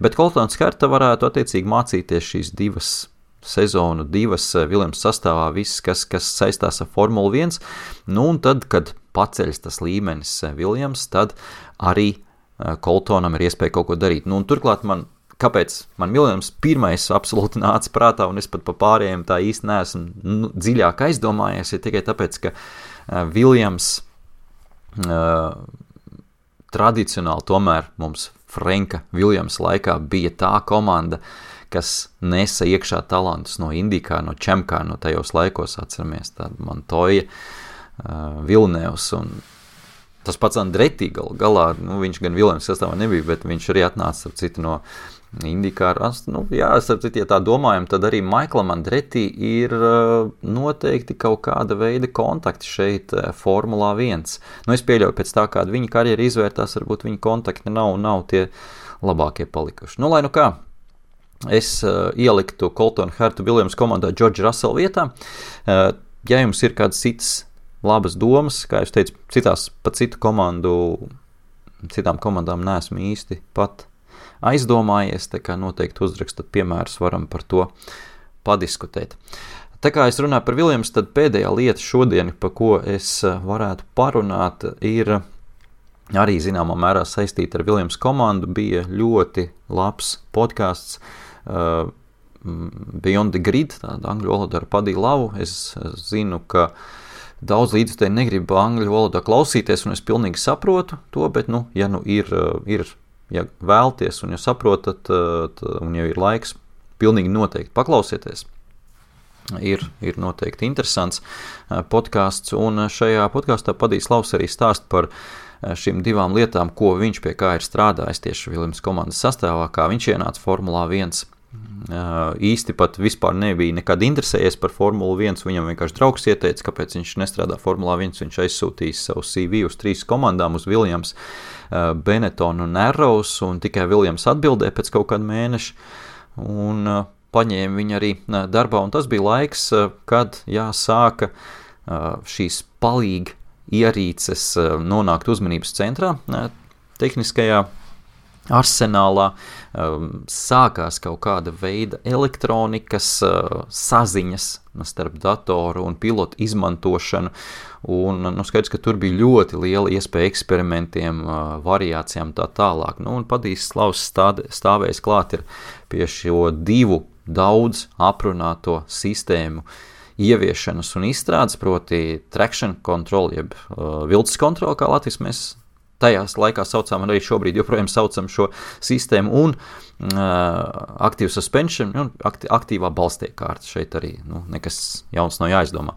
Bet Coltons Herta varētu attiecīgi mācīties šīs divas sezonu, 2 Viljams sastāvā, viss, kas saistās ar Formulu 1, nu un tad, kad paceļas tas līmenis Viljams, tad arī Coltonam ir iespēja kaut ko darīt. Nu un turklāt kāpēc man Viljams pirmais absolūti nāca prātā, un es pat pa pārējiem tā īsti neesmu dziļāk aizdomājies, ir tikai tāpēc, ka Viljams tradicionāli tomēr mums Frenka Viljamsa laikā bija tā komanda, kas nesa iekšā talantus no IndyCar, no Chamcar, no tajos laikos atceramies, tāda Montoya, Villeneuves un tas pats Andretti galā, nu, viņš gan Viljams sastāvā nebija, bet viņš arī atnāca ar citu no IndyCar. Nu, jā, starp citu, ja tā domājam, tad arī Michaelam Andretti ir noteikti kaut kāda veida kontakti šeit Formulā 1. Nu, es pieļauju pēc tā, kāda viņa karjera izvērtās, varbūt viņa kontakti nav tie labākie palikuši. Nu, lai nu kā, es ieliktu Colton Hertu Williams komandā George Russell vietā. Ja jums ir kādas citas labas domas, kā es teicu, citām komandām neesmu īsti pat aizdomājies, tā kā noteikti uzrakstat piemērus, varam par to padiskutēt. Tā kā es runāju par Viljams, tad pēdējā lieta šodien, pa ko es varētu parunāt, ir arī zināmā mērā saistīta ar Viljams komandu, bija ļoti labs podcasts Beyond the Grid, tāda angļu valodā ar Paddy Lavu. Es zinu, ka daudz līdzutēji negrib angļu valodā klausīties, un es pilnīgi saprotu to, bet, ja vēlties un ja saprotat, un ja ir laiks, pilnīgi noteikti paklausieties. Ir noteikti interesants podcasts, un šajā podkastā Padijs Lavs arī stāst par šīm 2 lietām, ko viņš pie kā ir strādājis tieši Viljams komandas sastāvā, kā viņš ienāca Formulā 1. Īsti pat vispār nebija nekad interesējies par Formulu 1, viņam vienkārši draugs ieteica, kāpēc viņš nestrādā Formulā 1, viņš aizsūtījis savu CV uz 3 komandām, uz Viljams, Benetton un Arrows, un tikai Viljams atbildēja pēc kaut kāda mēneša, un paņēma viņu arī darbā, un tas bija laiks, kad sāka šīs palīgi ierīces nonākt uzmanības centrā, tehniskajā arsenālā, sākās kaut kāda veida elektronikas saziņas starp datoru un pilotu izmantošanu, un skaidrs, ka tur bija ļoti liela iespēja eksperimentiem, variācijām tā tālāk. Nu, un Padijs Lavs stāvējis klāt ir pie šo 2 daudz aprunāto sistēmu ieviešanas un izstrādes, proti traction control, jeb vilces kontroli, kā Latvijas mēs tajās laikā saucām, un arī šobrīd joprojām saucam šo sistēmu, un active suspension, aktīvā balstiekārta. Šeit arī nekas jauns nav jāizdomā.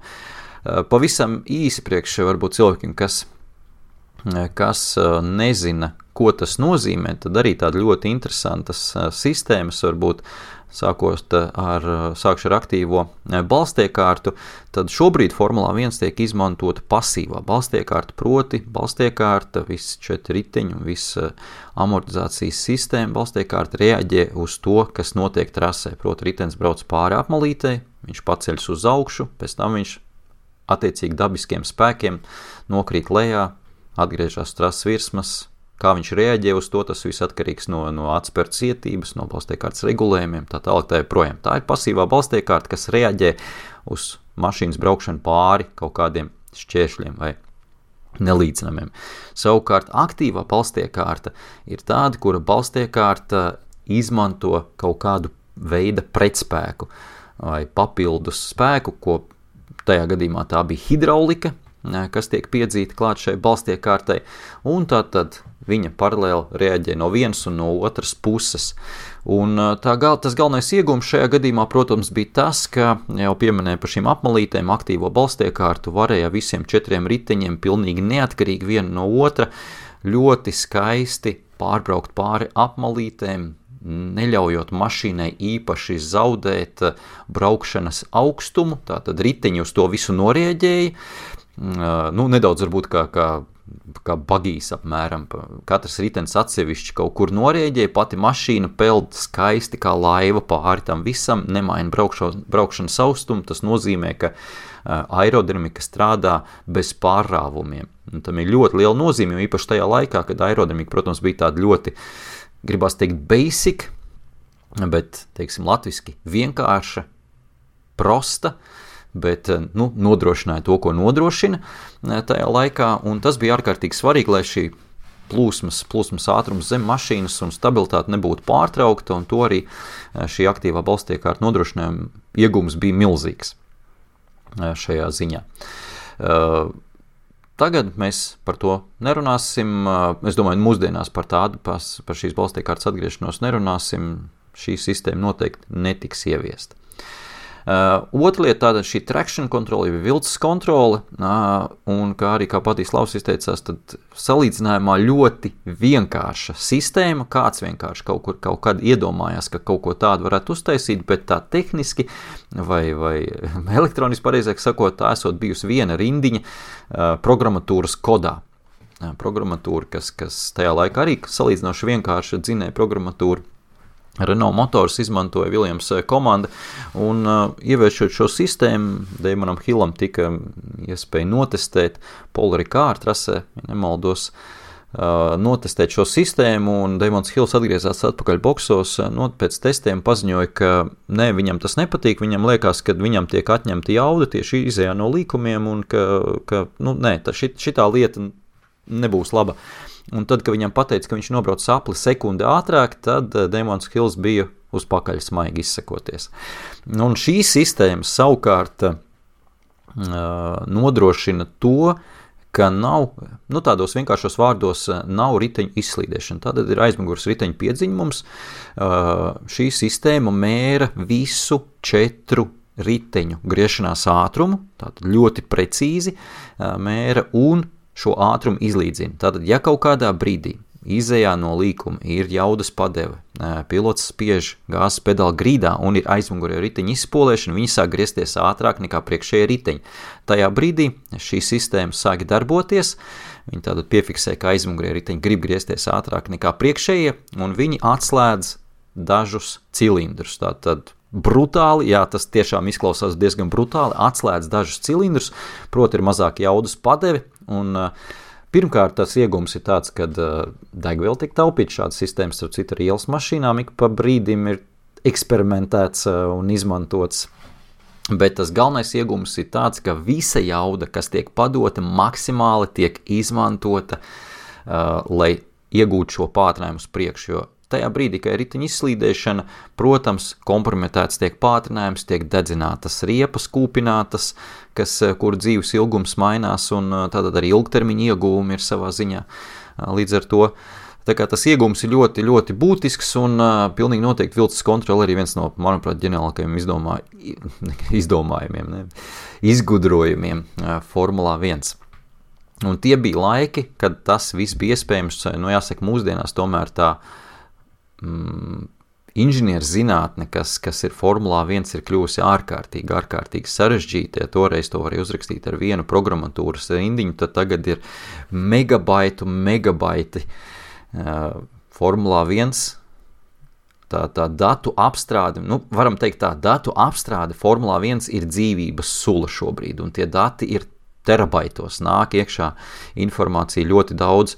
Pavisam īsi priekš varbūt cilvēkiem, kas nezina, ko tas nozīmē, tad arī tāda ļoti interesantas sistēmas varbūt sākšu ar aktīvo balstiekārtu, tad šobrīd Formulā 1 tiek izmantota pasīvā balstiekārta, proti balstiekārta, viss 4 riteņi un viss amortizācijas sistēma balstiekārta reaģē uz to, kas notiek trasē, proti ritenis brauc pāri apmalītei, viņš paceļas uz augšu, pēc tam viņš attiecīgi dabiskiem spēkiem nokrīt lejā, atgriežas trases virsmas. Kā viņš reaģē uz to, tas viss atkarīgs no atspēru cietības, no balstiekārtas regulējumiem, tā tālāk tā joprojām. Tā ir pasīvā balstiekārta, kas reaģē uz mašīnas braukšanu pāri kaut kādiem šķēršļiem vai nelīdzinamiem. Savukārt aktīvā balstiekārta ir tāda, kura balstiekārta izmanto kaut kādu veida pretspēku vai papildus spēku, ko tajā gadījumā tā bija hidraulika, kas tiek piedzīta klāt šai balstiekārtai, un tātad viņa paralēli reaģē no vienas un no otras puses. Un tas galvenais iegūms šajā gadījumā, protams, bija tas, ka jau pieminēja par šīm apmalītēm, aktīvo balstiekārtu varēja visiem 4 riteņiem pilnīgi neatkarīgi viena no otra ļoti skaisti pārbraukt pāri apmalītēm, neļaujot mašīnai īpaši zaudēt braukšanas augstumu, tātad riteņi uz to visu norieģēja, nedaudz varbūt kā bagīs apmēram, katrs ritenis atsevišķi kaut kur norieģēja, pati mašīna peld skaisti kā laiva pāri tam visam, nemaina braukšanas austumu, tas nozīmē, ka aerodinamika strādā bez pārrāvumiem. Un tam ir ļoti liela nozīme, jo īpaši tajā laikā, kad aerodinamika, protams, bija tāda ļoti, gribās teikt, basic, bet, teiksim, latviski vienkārša, prosta, bet nodrošināja to, ko nodrošina tajā laikā, un tas bija ārkārtīgi svarīgi, lai šī plūsmas ātrums zem mašīnas un stabilitāte nebūtu pārtraukta, un to arī šī aktīvā balstiekārta nodrošinājuma iegums bija milzīgs šajā ziņā. Tagad mēs par to nerunāsim, es domāju, mūsdienās par šīs balstiekārtas atgriešanos nerunāsim, šī sistēma noteikti netiks ieviesta. Otra lieta tāda šī traction kontrole, vilces kontrole, un kā Patīs Laus izteicās, tad salīdzinājumā ļoti vienkārša sistēma, kāds vienkārši kaut kad iedomājās, ka kaut ko tādu varētu uztaisīt, bet tā tehniski vai elektroniski pareizāk sakot, tā esot bijusi viena rindiņa programmatūras kodā. Programmatūra, kas tajā laikā arī salīdzinoši vienkārša dzinēja programmatūra. Renault Motors izmantoja Williams komanda, un ieviešot šo sistēmu, Damonam Hillam tika iespēja notestēt Paul Ricard trasē, ja nemaldos, notestēt šo sistēmu, un Damons Hills atgriezās atpakaļ boksos, pēc testiem paziņoja, ka viņam tas nepatīk, viņam liekas, ka viņam tiek atņemta jauda tieši izējā no līkumiem, un ka šitā lieta nebūs laba. Un tad, kad viņam pateica, ka viņš nobrauc sapli sekundi ātrāk, tad Damons Hills bija uz pakaļ smaigi izsakoties. Un šī sistēma savukārt nodrošina to, ka nav, tādos vienkāršos vārdos, nav riteņu izslīdēšana. Tātad ir aizmugures riteņu piedziņums. Šī sistēma mēra visu 4 riteņu griešanās ātrumu, tātad ļoti precīzi mēra un šo ātrumu izlīdzina. Tātad, ja kaut kādā brīdī izejā no līkuma ir jaudas padeve, pilots spiež gāzes pedāli grīdā un ir aizmugurē riteņa izspolēšana, viņi sāk griezties ātrāk nekā priekšējie riteņi. Tajā brīdī šī sistēma sāk darboties, viņi tātad piefiksē, ka aizmugurē riteņi grib griezties ātrāk nekā priekšējie, un viņi atslēdz dažus cilindrus. Tātad brutāli, jā, tas tiešām izklausās diezgan brutāli, atslēdz dažus cilindrus, proti ir mazāk jaudas padeve, un pirmkārt tas iegums ir tāds, kad degviela tiek taupīta, šādas sistēmas, starp citu, ar ielas mašīnām ik pa brīdim ir eksperimentēts un izmantots, bet tas galvenais iegums ir tāds, ka visa jauda, kas tiek padota, maksimāli tiek izmantota, lai iegūtu šo pātrinājumu uz priekšu, jo tajā brīdī, kad ir riteņa izslīdēšana, protams, kompromitēts tiek pātrinājums, tiek dedzinātas riepas, kūpinātas, kur dzīves ilgums mainās, un tātad arī ilgtermiņa ieguvumi ir savā ziņā. Līdz ar to, tā kā tas ieguvums ir ļoti, ļoti būtisks, un pilnīgi noteikti vilces kontrole arī viens no, manuprāt, ģeniālākajiem izgudrojumiem Formulā 1. Un tie bija laiki, kad tas viss bija iespējams, jāsaka, mūsdienās tomēr tā inženieru zinātne, kas ir Formulā 1, ir kļuvusi ārkārtīgi sarežģīta. Ja toreiz to varēja uzrakstīt ar vienu programmatūras rindiņu, tad tagad ir megabaiti. Formulā 1, tā datu apstrāde, varam teikt tā, datu apstrāde Formulā 1 ir dzīvības sula šobrīd, un tie dati ir terabaitos, nāk iekšā informācija ļoti daudz,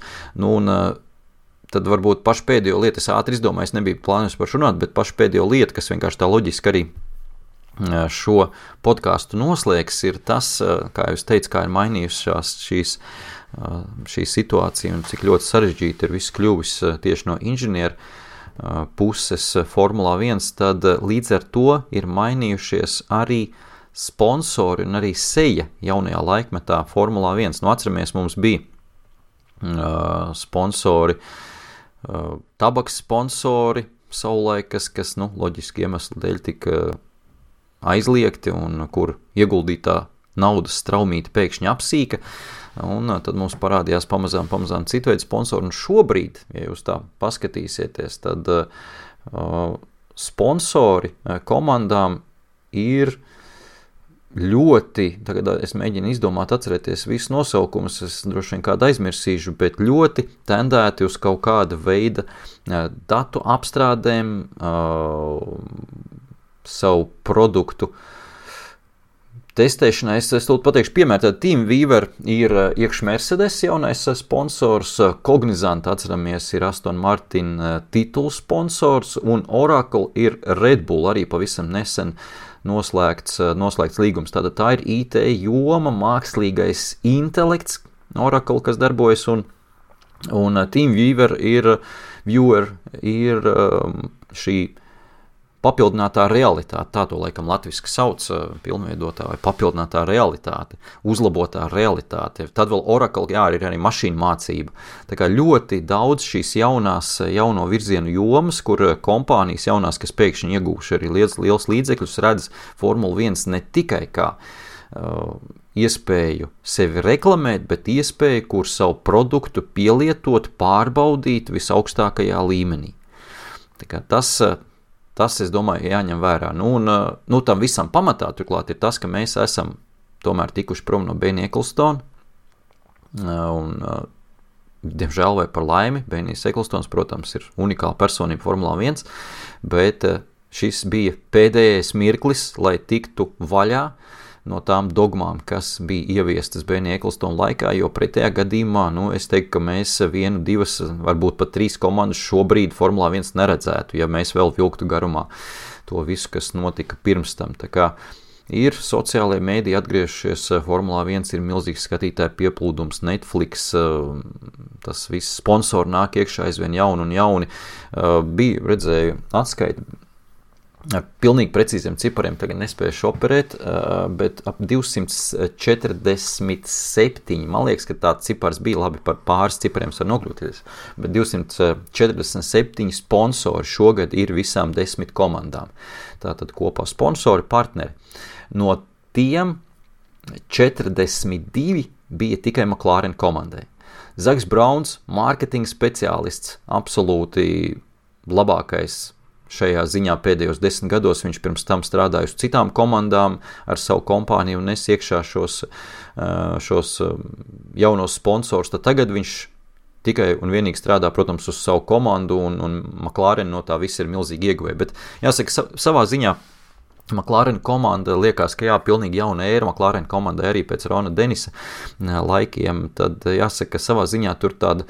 tad varbūt pašu pēdējo lietu, es ātri izdomāju, es nebiju plānojis par šo runāt, bet pašu pēdējo lietu, kas vienkārši tā loģiski arī šo podcastu noslēgs, ir tas, kā jūs teicu, kā ir mainījušās šī situācija un cik ļoti sarežģīti ir viss kļuvis tieši no inženieru puses Formulā 1, tad līdz ar to ir mainījušies arī sponsori un arī seja jaunajā laikmetā Formulā 1. Atceramies, mums bija sponsori, tabaks sponsori savulaik, kas loģiski iemeslu dēļ tika aizliegti un kur ieguldītā naudas straumīti pēkšņi apsīka, un tad mums parādījās pamazām citu veidu sponsori, un šobrīd, ja jūs tā paskatīsieties, tad sponsori komandām ir ļoti, tagad es mēģinu izdomāt, atcerēties visus nosaukumus, es droši vien kādu aizmirsīšu, bet ļoti tendēti uz kaut kāda veida datu apstrādēm, savu produktu testēšanai. Es tūlīt pateikšu piemēru, tad TeamViewer ir iekš Mercedes jaunais sponsors, Cognizant, atceramies, ir Aston Martin titulu sponsors, un Oracle ir Red Bull, arī pavisam nesen noslēgts līgums. Tātad tā ir IT joma, mākslīgais intelekts, Oracle, kas darbojas, un TeamViewer ir šī papildinātā realitāte, tā to laikam latviski sauc, pilnveidotā vai papildinātā realitāte, uzlabotā realitāte. Tad vēl Oracle, ir arī mašīnu mācība. Tā kā ļoti daudz šīs jauno virzienu jomas, kur kompānijas jaunās, kas pēkšņi iegūši arī liels līdzekļus, redz Formula 1 ne tikai kā iespēju sevi reklamēt, bet iespēju, kur savu produktu pielietot, pārbaudīt visaugstākajā līmenī. Tā kā tas, es domāju, jāņem vērā. Tam visam pamatā turklāt ir tas, ka mēs esam tomēr tikuši prom no Benny Ecclestona, un, diemžēl vai par laimi, Benijs Ecclestones, protams, ir unikāla personība Formulā 1, bet šis bija pēdējais mirklis, lai tiktu vaļā no tām dogmām, kas bija ieviestas Benija Ecclestona laikā, jo pretējā gadījumā, es teiktu, ka mēs 1, 2, varbūt pat 3 komandas šobrīd Formulā 1 neredzētu, ja mēs vēl vilktu garumā to visu, kas notika pirms tam. Tā kā ir sociālajie mēdī atgriežušies, Formulā 1 ir milzīgs skatītāju pieplūdums, Netflix, tas viss sponsori nāk iekšā aizvien jauni un jauni. Redzēju atskaiti, pilnīgi precīziem cipariem tagad nespējuši operēt, bet ap 247, man liekas, ka tāds cipars bija, labi par pāris cipariem var nokļūties, bet 247 sponsori šogad ir visām 10 komandām. Tātad kopā sponsori, partneri. No tiem 42 bija tikai McLaren komandai. Zaks Brauns, mārketinga speciālists, absolūti labākais šajā ziņā pēdējos 10 gados. Viņš pirms tam strādāja uz citām komandām ar savu kompāniju un nes iekšā šos jaunos sponsorus. Tad tagad viņš tikai un vienīgi strādā, protams, uz savu komandu, un McLaren no tā viss ir milzīgi ieguvēja. Bet jāsaka, savā ziņā McLaren komanda liekas, ka pilnīgi jauna ēra McLaren komandai arī pēc Rona Denisa laikiem. Tad jāsaka, ka savā ziņā tur tāda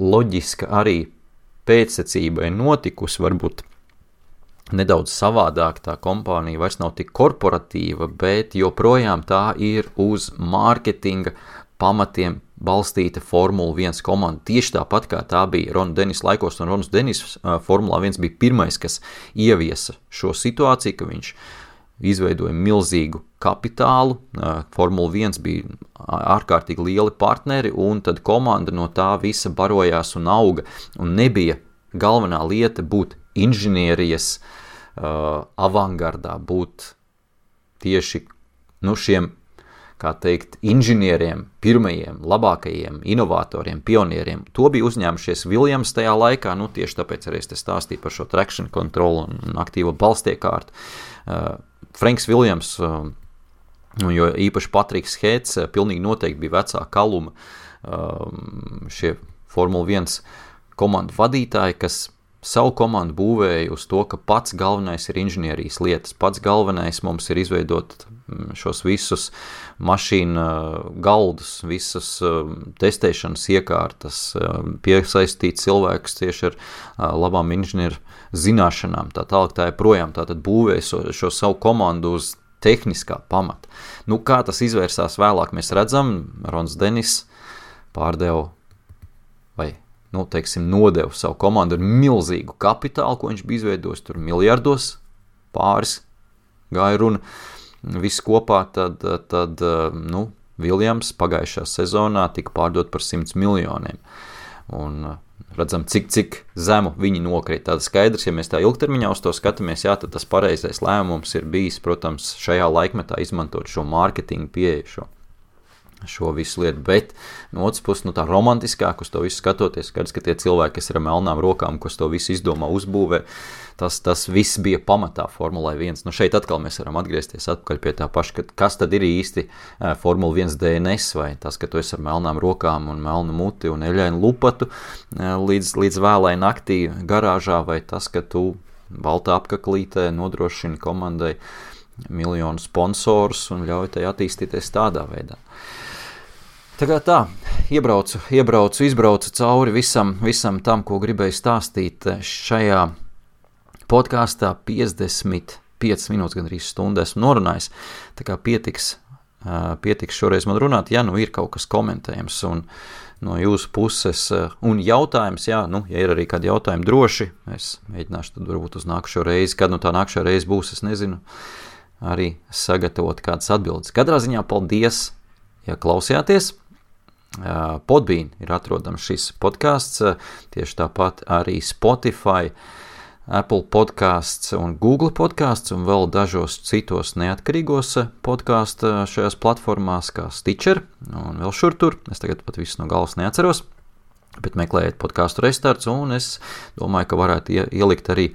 loģiska arī pēcsecība ir notikusi, varbūt nedaudz savādāk, tā kompānija vairs nav tik korporatīva, bet joprojām tā ir uz mārketinga pamatiem balstīta Formula 1 komanda. Tieši tāpat kā tā bija Rona Denisa laikos, un Ronas Denis Formula 1 bija pirmais, kas ieviesa šo situāciju, ka viņš izveidoja milzīgu kapitālu, Formula 1 bija ārkārtīgi lieli partneri, un tad komanda no tā visa barojās un auga, un nebija galvenā lieta būt inženierijas avangardā, būt tieši šiem, kā teikt, inženieriem, pirmajiem, labākajiem, inovatoriem, pionieriem. To bija uzņēmušies Williams tajā laikā, tieši tāpēc arī es te stāstīju par šo traction control un aktīvo balstiekārtu. Franks Williams, jo īpaši Patriks Hēts, pilnīgi noteikti bija vecā kaluma šie Formula 1 komandu vadītāji, kas savu komandu būvēja uz to, ka pats galvenais ir inženierijas lietas. Pats galvenais mums ir izveidot šos visus mašīnu galdus, visas testēšanas iekārtas, piesaistīt cilvēkus tieši ar labām inženieru zināšanām. Tā tālāk tā projām tātad būvēja šo savu komandu uz tehniskā pamata. Kā tas izvērsās vēlāk, mēs redzam, Rons Denis pārdeva vai nodeva savu komandu ar milzīgu kapitālu, ko viņš bija izveidojis, tur miljardos, pāris gāja runa, viss kopā, tad Williams pagājušā sezonā tika pārdot par 100 miljoniem. Un redzam, cik zemu viņi nokrīt. Tāda skaidrs, ja mēs tā ilgtermiņā uz to skatāmies, tad tas pareizais lēmums ir bijis, protams, šajā laikmetā izmantot šo mārketingu pieeju, šo visu lietu, bet no otras puses, tā romantiskāk uz to visu skatoties, skaidrs, ka tie cilvēki, kas ir ar melnām rokām, kas to visu izdomā, uzbūvē, tas viss bija pamatā Formulai 1. Šeit atkal mēs varam atgriezties atpakaļ pie tā paša, kas tad ir īsti Formula 1 DNS, vai tas, ka tu esi ar melnām rokām un melnu muti un eļainu lupatu līdz vēlai naktī garāžā, vai tas, ka tu baltā apkaklītē nodrošini komandai miljonu sponsorus un ļauj tai attīstīties tādā veidā. Tā, izbraucu cauri visam tam, ko gribēju stāstīt šajā podkāstā 55. 5 minūtes, gan arī stundu esmu norunājis, tā kā pietiks šoreiz man runāt, ja nu ir kaut kas komentējums un no jūsu puses un jautājums, ja ir arī kādi jautājumi droši, es mēģināšu tad varbūt uz nākušo reizi, kad tā nākušo reizi būs, es nezinu, arī sagatavot kādas atbildes. Katrā ziņā paldies, ja klausījāties. Podbean ir atrodams šis podcasts, tieši tāpat arī Spotify, Apple podcasts un Google podcasts un vēl dažos citos neatkarīgos podcastu šajās platformās kā Stitcher un vēl šur tur. Es tagad pat visu no galvas neatceros, bet meklējiet podcastu restarts un es domāju, ka varētu ielikt arī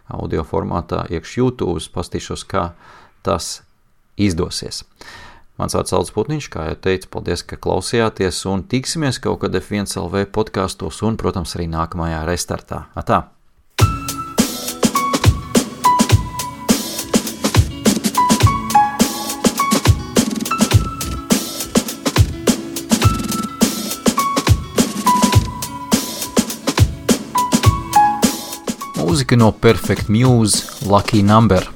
audio formātā iekš YouTube, pastīšos, kā tas izdosies. Mans vārds Aldis Putniņš, kā jau teicu, paldies, ka klausījāties un tiksimies kaut kad F1 LV podkastos un, protams, arī nākamajā restartā. Atā! Mūzika no Perfect Muse, Lucky Number.